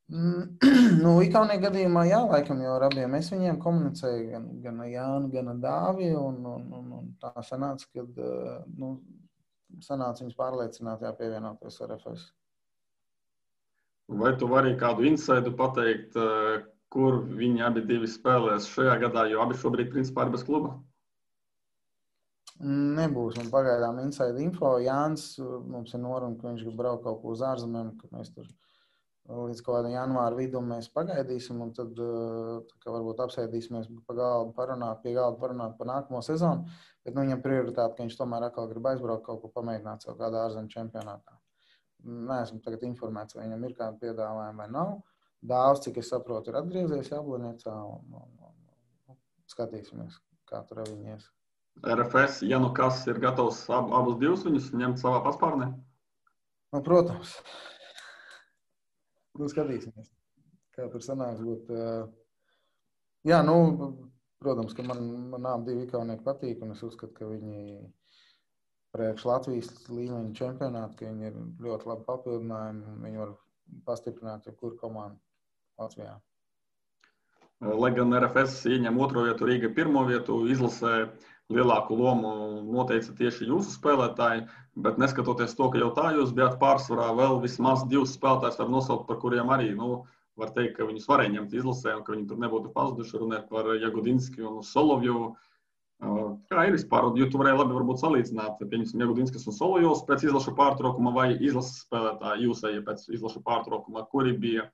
Ikaunieku gadījumā jā, laikam jau ar abiem es viņiem komunicēju, gan Jānu, gan Dāvi, un tā sanāca, kad sanāca viņus pārliecināt, pievienoties RFS. Vai tu vari kādu insaidu pateikt, kur viņi abi divi spēlēs šajā gadā, jo abi šobrīd principā ir bez kluba? Nebūs. Man pagaidām inside info. Jānis mums ir noruna, ka viņš grib braukt kaut ko uz ārzemēm, ka mēs tur līdz kaut kādam janvāra vidum mēs pagaidīsim un tad varbūt apsēdīsimies pie galda parunāt par nākamo sezonu. Bet viņam prioritāte, ka viņš tomēr atkal grib aizbraukt kaut ko pamēģināt savu kādā ārzemju čempionātā. Neesmu tagad informēts, vai viņam ir kāda piedāvājuma vai nav. Dāvs, cik es saprotu, ir atgriezies Jablonecā un skatīsimies, kā tur viņi ies. RFS, ja kas ir gatavs abus divus viņus ņemt savā paspārnē? Protams. Skatīsimies, kā tur sanāks būt. Protams, ka man abi divi ikaunieki patīk, un es uzskatu, ka viņi priekš Latvijas līmeņa čempionātu, ka viņi ir ļoti labi papildinājumi, viņi var pastiprināt jebkuru komandu Latvijā. Lai gan RFS ieņem 2. vietu, Rīga 1. vietu, izlasē lielāku lomu noteica tieši jūsu spēlētāji, bet neskatoties to, ka jau tā jūs bijāt pārsvarā, vēl vismaz 2 spēlētājus var nosaukt, par kuriem arī, var teikt, ka viņus varēja ņemt izlasē un ka viņi tur nebūtu pazuduši, runāt par Jagudinski un Solovjovu. Kā ir vispār, jo tu varēji labi varbūt salīdzināt, pieņemsim, Jagudinskis un Solovjovs pēc izlašu pārtraukuma vai izlases spēlētāji jūsēji pēc izlašu pārtraukuma, kuri bija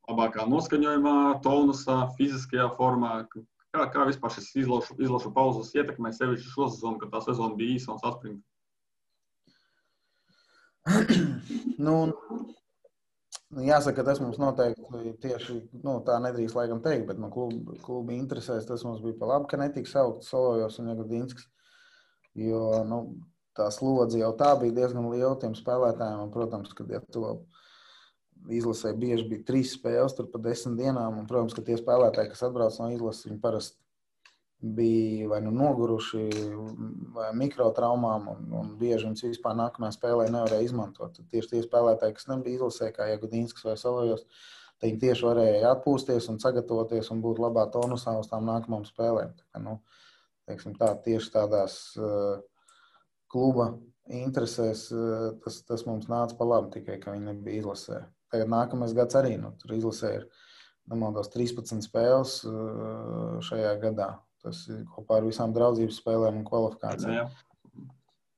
labākā noskaņojumā, tonusā, fiziskajā formā? Kā vispār šis izlašu pauzes ietekmē sevišķi šo sezonu, kad tā sezona bija īsa un saspringta? Jāsaka, tas mums noteikti tieši, tā nedrīkst laikam teikt, bet klubi interesēs, tas mums bija pa labi, ka netika saukt Solovjovs un Jagudinskis, jo, tā slodze jau tā bija diezgan liela tiem spēlētājiem, un, protams, kad ja to izlasē bieži bija 3 spēles tur pa 10 dienām, un, protams, ka tie spēlētāji, kas atbrauc no izlases, viņi parasti bija vai noguruši vai mikrotraumām, un bieži viņus vispār nākamajā spēlē nevarēja izmantot. Tad tieši tie spēlētāji, kas nebija izlasē, kā Jagudinskis vai Solovjovs, viņi tieši varēja atpūsties un sagatavoties un būt labā tonusā uz tām nākamām spēlēm. Tieši tādās kluba interesēs tas mums nāca pa labi, tikai ka viņi nebija izlasē. Tagad nākamais gads arī, tur izlasē ir, nemaldos, 13 spēles šajā gadā. Tas ir kopā ar visām draudzības spēlēm un kvalifikācijām.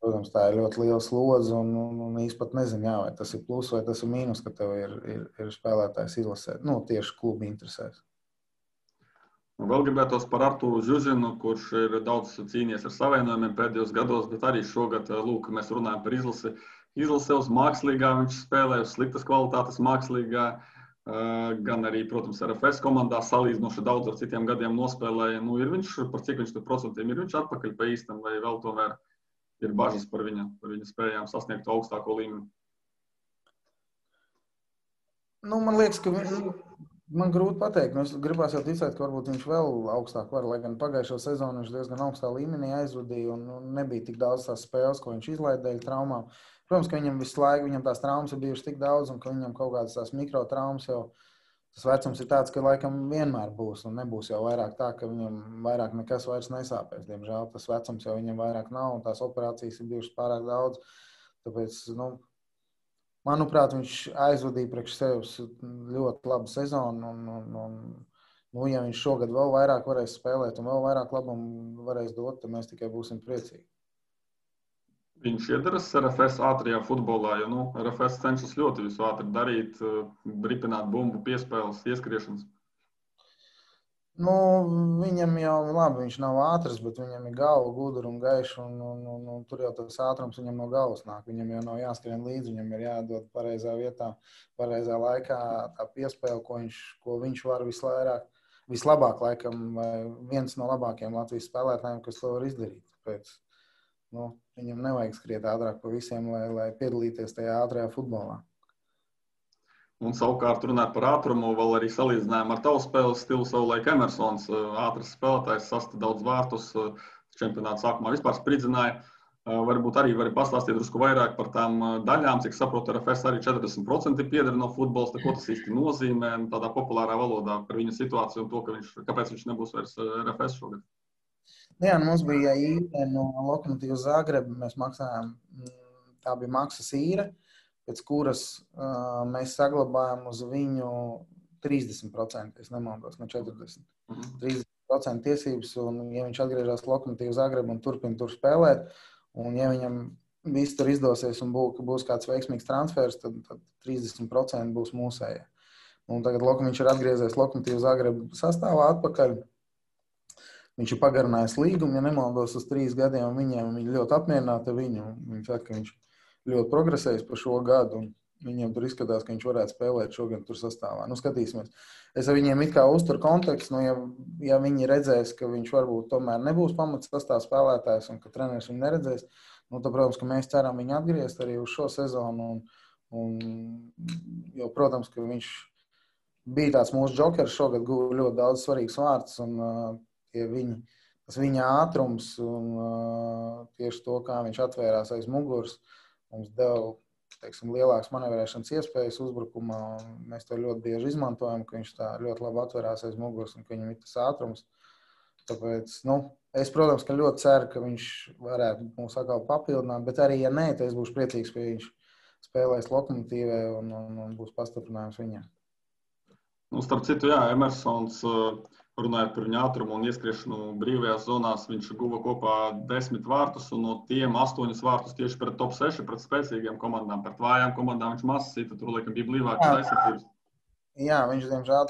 Protams, tā ir ļoti liela slodze un īsti pat nezinu, vai tas ir plus vai tas ir mīnus, ka tev ir spēlētājs izlasē. Tieši klubi interesēs. Vēl gribētos par Arturu Žužinu, kurš ir daudz cīnījies ar savienojumiem pēdējos gados, bet arī šogad, mēs runājam par izlasi. Izlasē uz mākslīgā viņš spēlē, uz sliktas kvalitātes mākslīgā, gan arī, protams, RFS komandā salīdzinoši daudz ar citiem gadiem nospēlēja. Ir viņš, par cik viņš tur procentiem ir viņš atpakaļ pa īstam, vai vēl tomēr ir bažas par viņa spējām sasniegt augstāko līmeni? Man liekas, ka man grūti pateikt. Es gribās jau ticēt, ka varbūt viņš vēl augstāk var, lai gan pagājušo sezonu viņš diezgan augstā līmenī aizvadīja un nebija tik daudz tās spēles, ko viņš izlaida dēļ traumām. Protams, ka viņam visu laiku, viņam tās traumas ir bijušas tik daudz un ka viņam kaut kādas tās mikrotraumas jau, tas vecums ir tāds, ka laikam vienmēr būs un nebūs jau vairāk tā, ka viņam vairāk nekas vairs nesāpēs. Diemžēl tas vecums jau viņam vairāk nav un tās operācijas ir bijušas pārāk daudz. Tāpēc, manuprāt, viņš aizvadīja priekš sevis ļoti labu sezonu un ja viņš šogad vēl vairāk varēs spēlēt un vēl vairāk labumu varēs dot, tad mēs tikai būsim priecīgi. Viņš iedaras RFS ātrajā futbolā, jo RFS cenšas ļoti visu ātri darīt, ripināt bumbu, piespēles, ieskriešanas. Viņam jau labi, viņš nav ātrs, bet viņam ir galva gudra un gaiša, un tur jau tas ātrums viņam no galvas nāk. Viņam jau nav jāskrien līdzi, viņam ir jādod pareizā vietā, pareizā laikā tā piespēle, ko viņš var vislabāk, laikam, vai viens no labākajiem Latvijas spēlētājiem, kas to var izdarīt. Tāpēc, viņam nevajag skriet ātrāk pa visiem, lai piedalīties tajā ātrajā futbolā. Un savukārt runāt par ātrumu, vēl arī salīdzinājām ar tavu spēles stilu savulaik Emersons, ātrs spēlētājs, sasta daudz vārtus, čempionāta sākumā vispār spridzināja. Varbūt arī vari pastāstīt drusku vairāk par tām daļām, cik saprotu, RFS arī 40% pieder no futbols, ko tas īsti nozīmē, tādā populārā valodā par viņa situāciju un to, kāpēc viņš nebūs vairs RFS šogad. Jā, mums bija īre no Lokomotīvas Zagreba, mēs maksājām, tā bija maksas īre, pēc kuras mēs saglabājam uz viņu 30%, es nemaldos, no 40%. 30% tiesības, un ja viņš atgriežas Lokomotīvas Zagreba un turpina tur spēlēt, un ja viņam viss tur izdosies un būs kāds veiksmīgs transfers, tad 30% būs mūsējie. Un tagad viņš ir atgriezies Lokomotīvas Zagreba sastāvā atpakaļ. Viņš ir pagarinājis līgumu, ja nemaldos, uz 3 gadiem, viņi ļoti apmierināti ar viņu. Viņi saka, ka viņš ļoti progresējis par šo gadu, un viņiem tur izskatās, ka viņš varētu spēlēt šogad tur sastāvā. Skatīsimies. Es ar viņiem it kā uzturu kontekstu, ja viņi redzēs, ka viņš varbūt tomēr nebūs pamats sastāvā spēlētājs un ka treneris viņu neredzēs, tad, protams, ka mēs ceram viņu atgriezt arī uz šo sezonu. Jo, protams, ka viņš bija tāds mūsu džokers, šogad guva ļoti daudz svarīgs vārds, un tas viņa ātrums un tieši to, kā viņš atvērās aiz muguras, mums deva teiksim, lielākas manevrēšanas iespējas uzbrukumā. Mēs to ļoti bieži izmantojam, ka viņš tā ļoti labi atverās aiz muguras un ka viņam ir tas ātrums. Tāpēc, es, protams, ka ļoti ceru, ka viņš varētu mūs atkal papildināt, bet arī, ja nē, tad es būšu priecīgs, ka viņš spēlēs Lokomotīvē un būs pastiprinājums viņam. Starp citu, jā, Emersons, runājot par viņa ātrumu un ieskriešanu brīvajās zonās, viņš guva kopā 10 vārtus, un no tiem 8 vārtus tieši pret top 6, pret spēcīgiem komandām, pret vājām komandām viņš mazs sita, tur laikam bija blīvākas aizsardzības. Jā, viņš, diemžēl,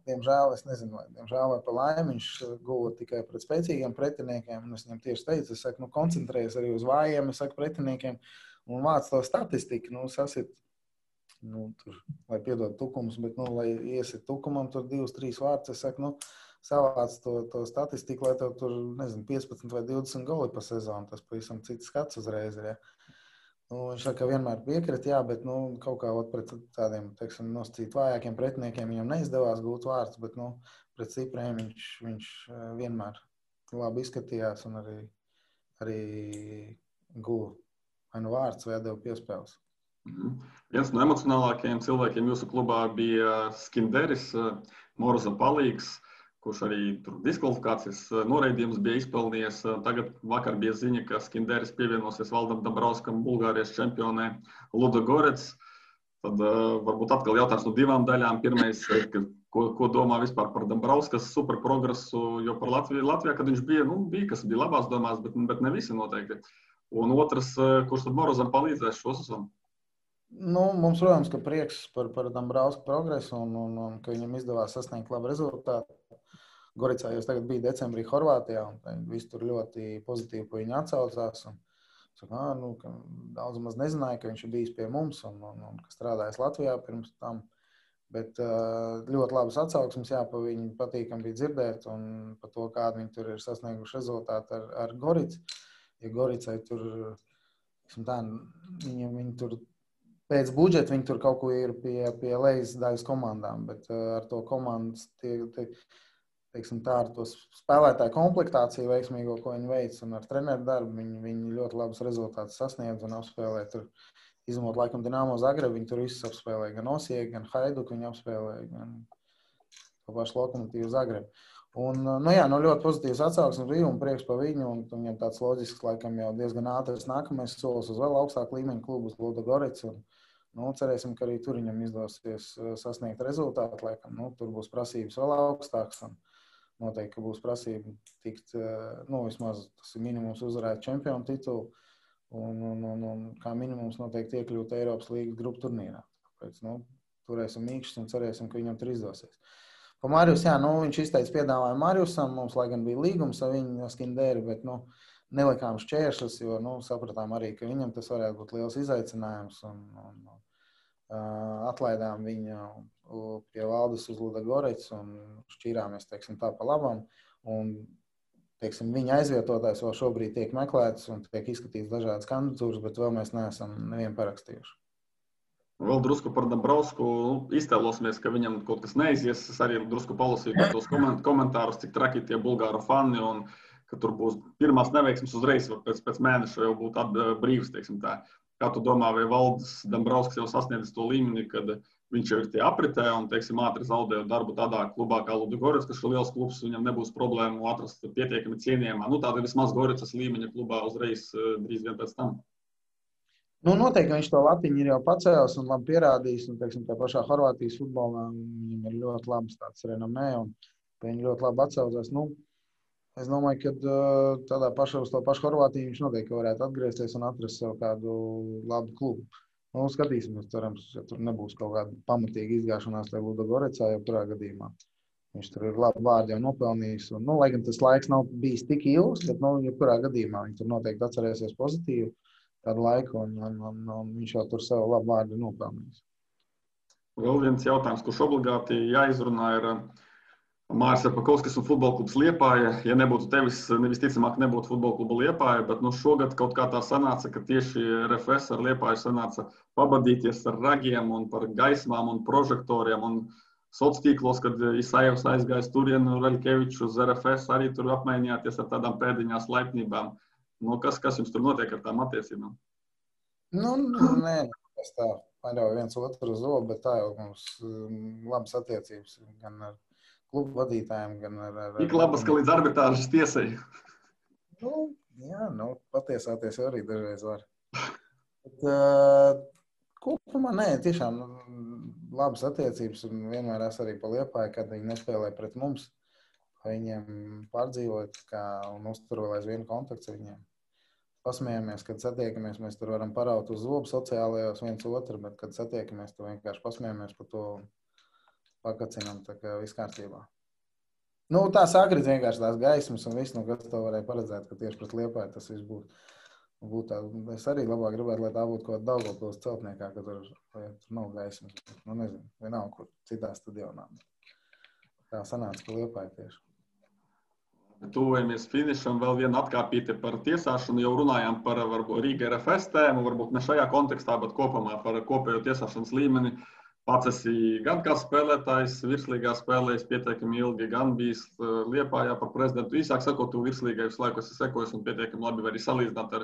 diemžēl, es nezinu, diemžēl vai pa laimi, viņš guva tikai pret spēcīgiem pretiniekiem, un es viņam tieši teicu, es saku, koncentrējies arī uz vājiem, es saku, pretiniekiem, un vāc to statistiku, sasit, tur, lai piedod tukums, bet, lai iesit tukumam, tur 2-3 vārds, es saku, savāc to statistiku, lai tev tur, 15 vai 20 goli pa sezonu, tas pavisam cits skats uzreiz ir, ja. Viņš saka, vienmēr piekrita, jā, bet, kaut kā pret tādiem, teiksim, nosacīt vājākiem pretiniekiem viņam neizdevās gūt vārds, bet, pret stipriem viņš vienmēr labi izskatījās un arī guva vai vārds vai atdeva piespēles. Viens no emocionālākajiem cilvēkiem jūsu klubā bija Skinderis, Moroza palīgs, kurš arī tur diskvalifikācijas noraidījums bija izpelnījies. Tagad vakar bija ziņa, ka Skinderis pievienosies Valdam Dambrauskam, Bulgārijas čempionē Ludogorets. Tad varbūt atkal jautājums no 2 daļām. Pirmais, ko domā vispār par Dambrauskas super progresu, jo par Latvijā, kad viņš bija, kas bija labās domās, bet ne visi noteikti. Un otrs, kurš tad Morozam palīdzēs šo sezonu? Mums, protams, ka prieks par Dambrausku progresu un ka viņam izdevās sasniegt labu rezultātu. Goricā jau tagad bija decembrī Horvātijā, un viss tur ļoti pozitīvi pa viņu atsaucās. Ka daudz maz nezināja, ka viņš ir bijis pie mums un ka strādājis Latvijā pirms tam. Bet ļoti labas atsauksmes, jā, pa viņu patīkam bija dzirdēt un par to, kādu viņi tur ir sasnieguši rezultātu ar Goricu. Ja Goricai tur, viņi tur pēc budžeta viņi tur kaut ko ir pie lejas daļas komandām, bet ar to komandas ar to spēlētāju komplektāciju veiksmīgo, ko viņi veic, un ar treneru darbu viņi ļoti labus rezultātus sasniedz un apspēlē tur, izņemot laikam Dinamo Zagrebu, viņi tur visus apspēlē, gan Osieku, gan Haiduku viņi apspēlē, gan to pašu Lokomotīvu Zagrebu. Un, ļoti pozitīvs atsauksmes bija un prieks par viņu, un viņam tāds loģisks, laikam jau diezgan ātrs nākamais solis uz vēl augstāku līmeņu klubu uz Ludogorets, un cerēsim, ka arī tur viņam izdosies sasniegt rezultātu, laikam, tur būs prasības vēl augstāks, un noteikti, ka būs prasība tikt, vismaz tas ir minimums uzvarēt čempionu titulu un kā minimums noteikti iekļūt Eiropas līgas grupu turnīrā. Tāpēc, turēsim mīkšķus un cerēsim, ka viņam tur izdosies. Pa Marius, jā, viņš izteica piedāvājumu Mariusam, mums, lai gan bija līgums ar viņu Skinderi, bet, nelikām šķēršus, jo, sapratām arī, ka viņam tas varētu būt liels izaicinājums un atlaidām viņu pie Valdes uz Ludogorets un šķīrāmies, tā pa labam. Un, viņa aizvietotājs vēl šobrīd tiek meklēts un tiek izskatīts dažādas kandidatūras, bet vēl mēs neesam nevienu parakstījuši. Vēl drusku par Dambrausku iztēlosimies, ka viņam kaut kas neizies. Es arī drusku palasīju tos komentārus, cik traki tie bulgāru fani un ka tur būs pirmās neveiksmes uzreiz, pēc mēneša jau būtu brīvs, tā. Kā tu domā, vai Valdis Dambrausks jau sasniedzis to līmeni, kad viņš jau ir tie apritē un, ātri zaudējot darbu tādā klubā kā Ludogorets, kas ir liels klubs, viņam nebūs problēmu atrast pietiekami cienījumā. Tāda vismaz Goricas līmeņa klubā uzreiz drīz vien pēc tam. Noteikti viņš to latiņu ir jau pacēlis un labi pierādījis, un, tā pašā Horvātijas futbolā viņam ir ļoti labs tāds renomē, un viņi ļoti labi atsaucās. Es domāju, ka tādā uz to pašu Horvātiju viņš noteikti varētu atgriezties un atrast sev kādu labu klubu. Skatīsimies, cerams, ja tur nebūs kaut kāda pamatīga izgāšanās tajā Ludogorecā, jau kurā gadījumā. Viņš tur ir labu vārdu jau nopelnījis. Un, lai gan tas laiks nav bijis tik ilgs, bet, jebkurā gadījumā viņš tur noteikti atcerēsies pozitīvu kādu laiku, un viņš jau tur savu labu vārdu nopelnījis. Vēl viens jautājums, kurš obligāti jāizrunā, ir Māris Arpakovskis un futbola klubs Liepāja. Ja nebūtu tevis, visticamāk nebūtu futbola kluba Liepāja, bet šogad kaut kā tā sanāca, ka tieši RFS ar Liepāju sanāca pabadīties ar ragiem un par gaismām un prožektoriem un sociālos tīklos, kad Isajevs aizgājis turien un Veļkevičs uz RFS arī tur apmainījāties ar tādām pēdiņās laipnībām. Kas jums tur notiek ar tām attiecībām? Nē, tas tā paļauj viens otru uz zobu, bet tā jau mums labas attiecības gan ar klubu vadītājiem, gan ar Tik labas, ka līdz arbitrāžas tiesai. Jā, patiesāties arī dažreiz var. Bet, kopumā nē, tiešām labas attiecības un vienmēr es arī pa Liepāju, kad viņi nespēlē pret mums. Viņiem pārdzīvot un uzturot vienu kontaktu ar viņiem. Pasmējamies, kad satiekamies, mēs tur varam paraut uz zobu sociālajos viens otru, bet, kad satiekamies, tu vienkārši pasmējamies par to pakacinām, tā kā viss kārtībā. Tā sakrit vienkārši tās gaismas un viss, kas to varēja paredzēt, ka tieši pret Liepāju tas viss būtu tā. Es arī labāk gribētu, lai tā būtu kaut kāda Daugavpils celtniekā, ka tur nav gaismas. Nezinu, vienalga, kur citā stadionā. Tā sanāca, ka Liepāja tieši. Tuvojamies finišam, vēl viena atkāpīte par tiesāšanu. Jau runājām par Rīga RFS tēmu, varbūt ne šajā kontekstā, bet kopumā par kopējo tiesāšanas līmeni. Pats esi gan kā spēlētājs, virslīgā spēlējis pietiekami ilgi, gan bijis Liepājā par prezidentu. Īsāk sakot, tu virslīgai visu laiku esi sekojis un pietiekami labi arī salīdzināt ar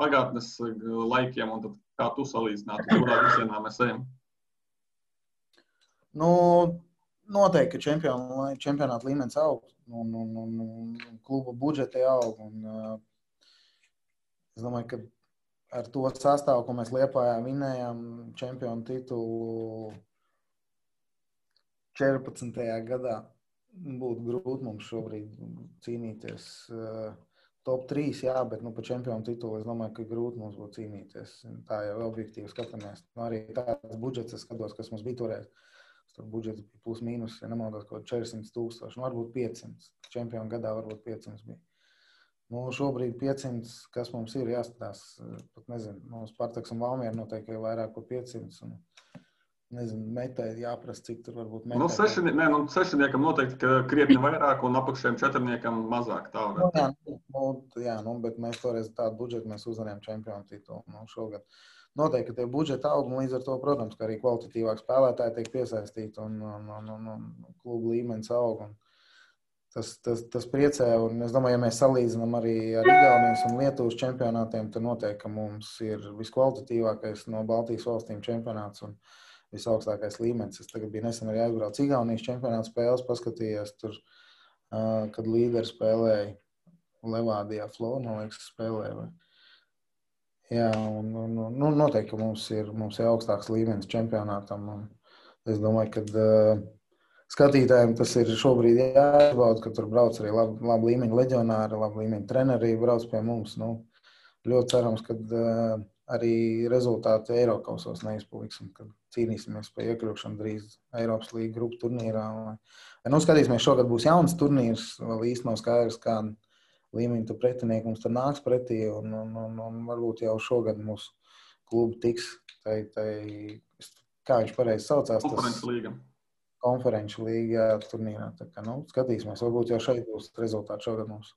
pagātnes laikiem. Un tad kā tu salīdzinātu, kurā virsienā mēs ejam? Noteikti, ka čempionāta līmenis aug un kluba budžeti aug. Es domāju, ka ar to sastāvu, ko mēs Liepājā vinējām čempionu titulu 14. gadā, būtu grūti mums šobrīd cīnīties. Top 3, jā, bet par čempionu titulu es domāju, ka grūti mums būtu cīnīties. Tā jau objektīvi skatāmies. Arī tāds budžets, es skatos, kas mums bija toreiz. Tur budžets bija plus mīnus, ja nemaldos, kaut 400,000, varbūt 500. Čempionu gadā varbūt 500 bija. Šobrīd 500, kas mums ir jāskatās, pat nezinu, Spartaks un Valmiera noteikti vairāk par 500. Un, nezinu, metai jāprasa, cik tur varbūt metai. Sešniekam noteikti, ka krietni vairāk un apakšējiem četrniekam mazāk. Tā jā, bet mēs toreiz tādu budžetu mēs uzvarējām čempionu titulu šogad. Noteikti, ka tie budžeti aug, un līdz ar to, protams, ka arī kvalitatīvāk spēlētāji tiek piesaistīti un klubu līmenis aug. Tas priecē, un es domāju, ja mēs salīdzinām arī ar Igaunijas un Lietuvas čempionātiem, tad noteikti, ka mums ir viskvalitatīvākais no Baltijas valstīm čempionāts un visaugstākais līmenis. Es tagad biju nesen arī aizbraucis Igaunijas čempionāta spēles, paskatījies tur, kad līderi spēlēja Levādijā, Flo, man liekas, spēlēja. Jā, un noteikti, ka mums ir augstāks līmenis čempionātam. Es domāju, ka skatītājiem tas ir šobrīd jāizbauda, ka tur brauc arī labi līmeņa leģionāri, labi līmeņa treneri brauc pie mums. Ļoti cerams, ka arī rezultāti Eirokausos neizpaliksim, kad cīnīsimies par iekļūšanu drīz Eiropas līga grupu turnīrā. Skatīsimies, šogad būs jauns turnīrs, vēl īsti nav skaidrs, kāda līmeņa tu pretinieki mums tur nāks pretī, un varbūt jau šogad mūsu klubu tiks, kā viņš pareizi saucās, konferenču līga turnīrā. Tā kā, skatīsimies, varbūt jau šeit būs rezultāti šogad mums.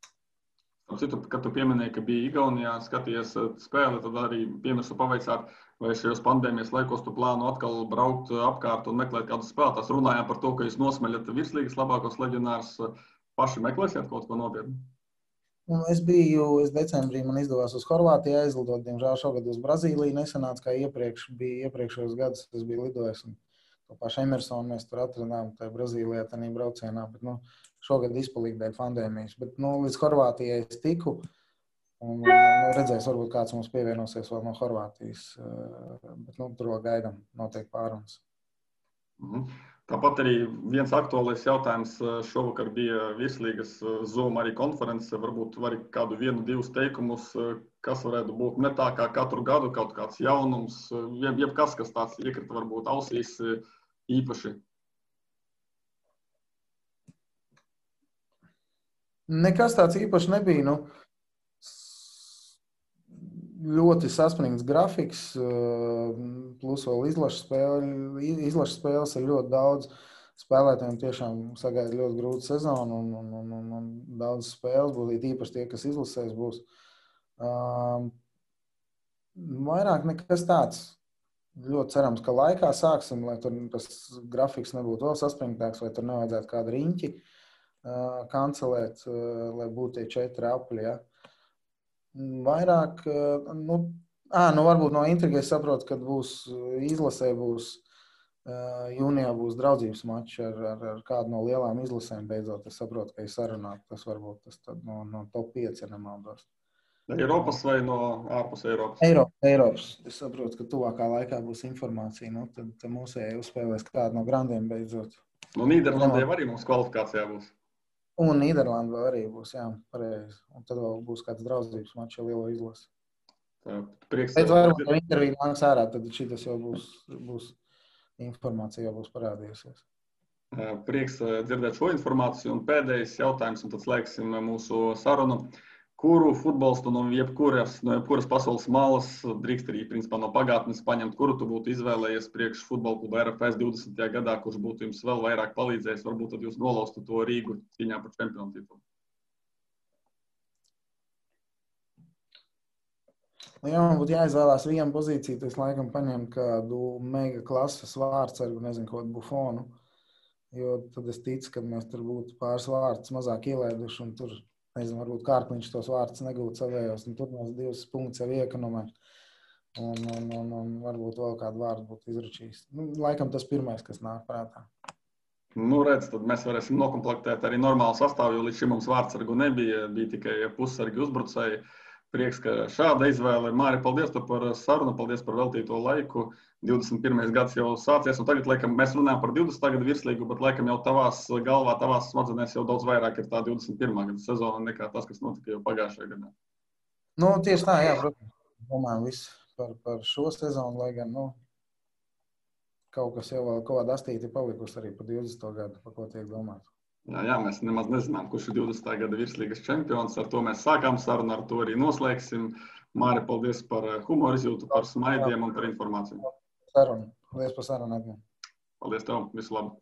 Citu, kad tu pieminēji, ka bija Igaunijā, skaties spēli, tad arī piemirsu pavaicāt, vai šajos pandēmijas laikos tu plānu atkal braukt apkārt un meklēt kādus spēlētājus. Runājām par to, ka jūs nosmeļat virslīgas labākos leģionārus, paši meklēsiet kaut ko nopietnu? Es decembrī man izdevās uz Horvātiju aizlidot, diemžēl šogad uz Brazīliju nesanāca, kā iepriekšējos gadus es biju lidojis. To pašu Emersonu mēs tur atradām, tajā Brazīlijā, tajā braucienā, bet šogad izpalīja dēļ pandēmijas. Bet līdz Horvātijai es tiku un redzēs, varbūt kāds mums pievienosies vēl no Horvātijas, bet tur vēl gaidām noteikti pārunas. Tāpat arī viens aktuālais jautājums šovakar bija virslīgas Zoom arī konference. Varbūt vari kādu 1-2 teikumus, kas varētu būt ne tā kā katru gadu, kaut kāds jaunums, jebkas, kas tāds iekrita varbūt ausīs īpaši. Nekas tāds īpaši nebija. Ļoti saspringts grafiks, plus vēl izlaša spēles ir ļoti daudz. Spēlētājiem tiešām sagaida ļoti grūta sezona un daudz spēles būs, īpaši tie, kas izlasēs būs. Vairāk nekas tāds. Ļoti cerams, ka laikā sāksim, lai tur tas grafiks nebūtu vēl saspringtāks, vai tur nevajadzētu kādu riņķi kancelēt, lai būtu tie 4 apļi, ja. Vairāk, Varbūt no intrigas saprotu, kad būs izlasē, jūnijā būs draudzības mačs ar kādu no lielām izlasēm beidzot. Es saprotu, ka ir sarunāt, tas varbūt tas no top 5, ja nemaldos. Eiropas vai no ārpus Eiropas? Eiropas. Es saprotu, ka tuvākā laikā būs informācija. Tad mūsēji uzspēlēs kādu no grandiem beidzot. No Nīderlandē arī mums kvalifikācijā būs. Un Nīderlandē arī būs, jā, pareizi. Un tad vēl būs kāds draudzības mačs ar lielo izlasi. Prieks. Pēc varbūt no interviju nāks ārā, tad šitas jau būs informācija, jau būs parādījusies. Prieks dzirdēt šo informāciju. Un pēdējais jautājums, un tad slēgsim mūsu sarunu. Kuru futbolistu no jebkuras pasaules malas drīkst arī principā no pagātnes paņemt, kuru tu būtu izvēlējies priekš futbola kluba RFS 20. gadā, kurš būtu jums vēl vairāk palīdzējis, varbūt tad jūs nolaustu to Rīgu cīņā par čempionu titulu? Ja man būtu jāizvēlās vienu pozīciju, tad es laikam paņemtu kādu mega klases vārdsargu, nezinu, kaut kādu Buffonu, jo tad es ticu, ka mēs tur būtu pāris vārdus mazāk ielaiduši un tur, nezinu, varbūt Kārkliņš tos vārdus negūtu savējos, un tur mēs 2 punktus jau iekonomē. Un varbūt vēl kādu vārdu būtu izračījis. Laikam tas pirmais, kas nāk prātā. Redz, tad mēs varēsim nokomplektēt arī normālu sastāvu, jo līdz šim mums vārdsargu nebija, bija tikai pussargi uzbrucēji. Prieks, ka šāda izvēle. Māri, paldies par sarunu, paldies par veltīto laiku. 21. gads jau sācies, un tagad, laikam, mēs runājam par 20. gadu virslīgu, bet, laikam, jau tavās galvā, tavās smadzenēs jau daudz vairāk ir tā 21. gada sezona nekā tas, kas notika jau pagājušajā gadā. Tieši tā, jā, protams. Domājam visu par šo sezonu, lai gan, kaut kas jau vēl kaut kāda astīti palikusi arī par 20. gadu, par ko tiek domāt. Jā, mēs nemaz nezinām, kurš ir 20. gada virslīgas čempions. Ar to mēs sākām sarunu, ar to arī noslēgsim. Māri, paldies par humoru izjūtu, par smaidiem un par informāciju. Paldies par sarunu. Paldies tev, visu labu.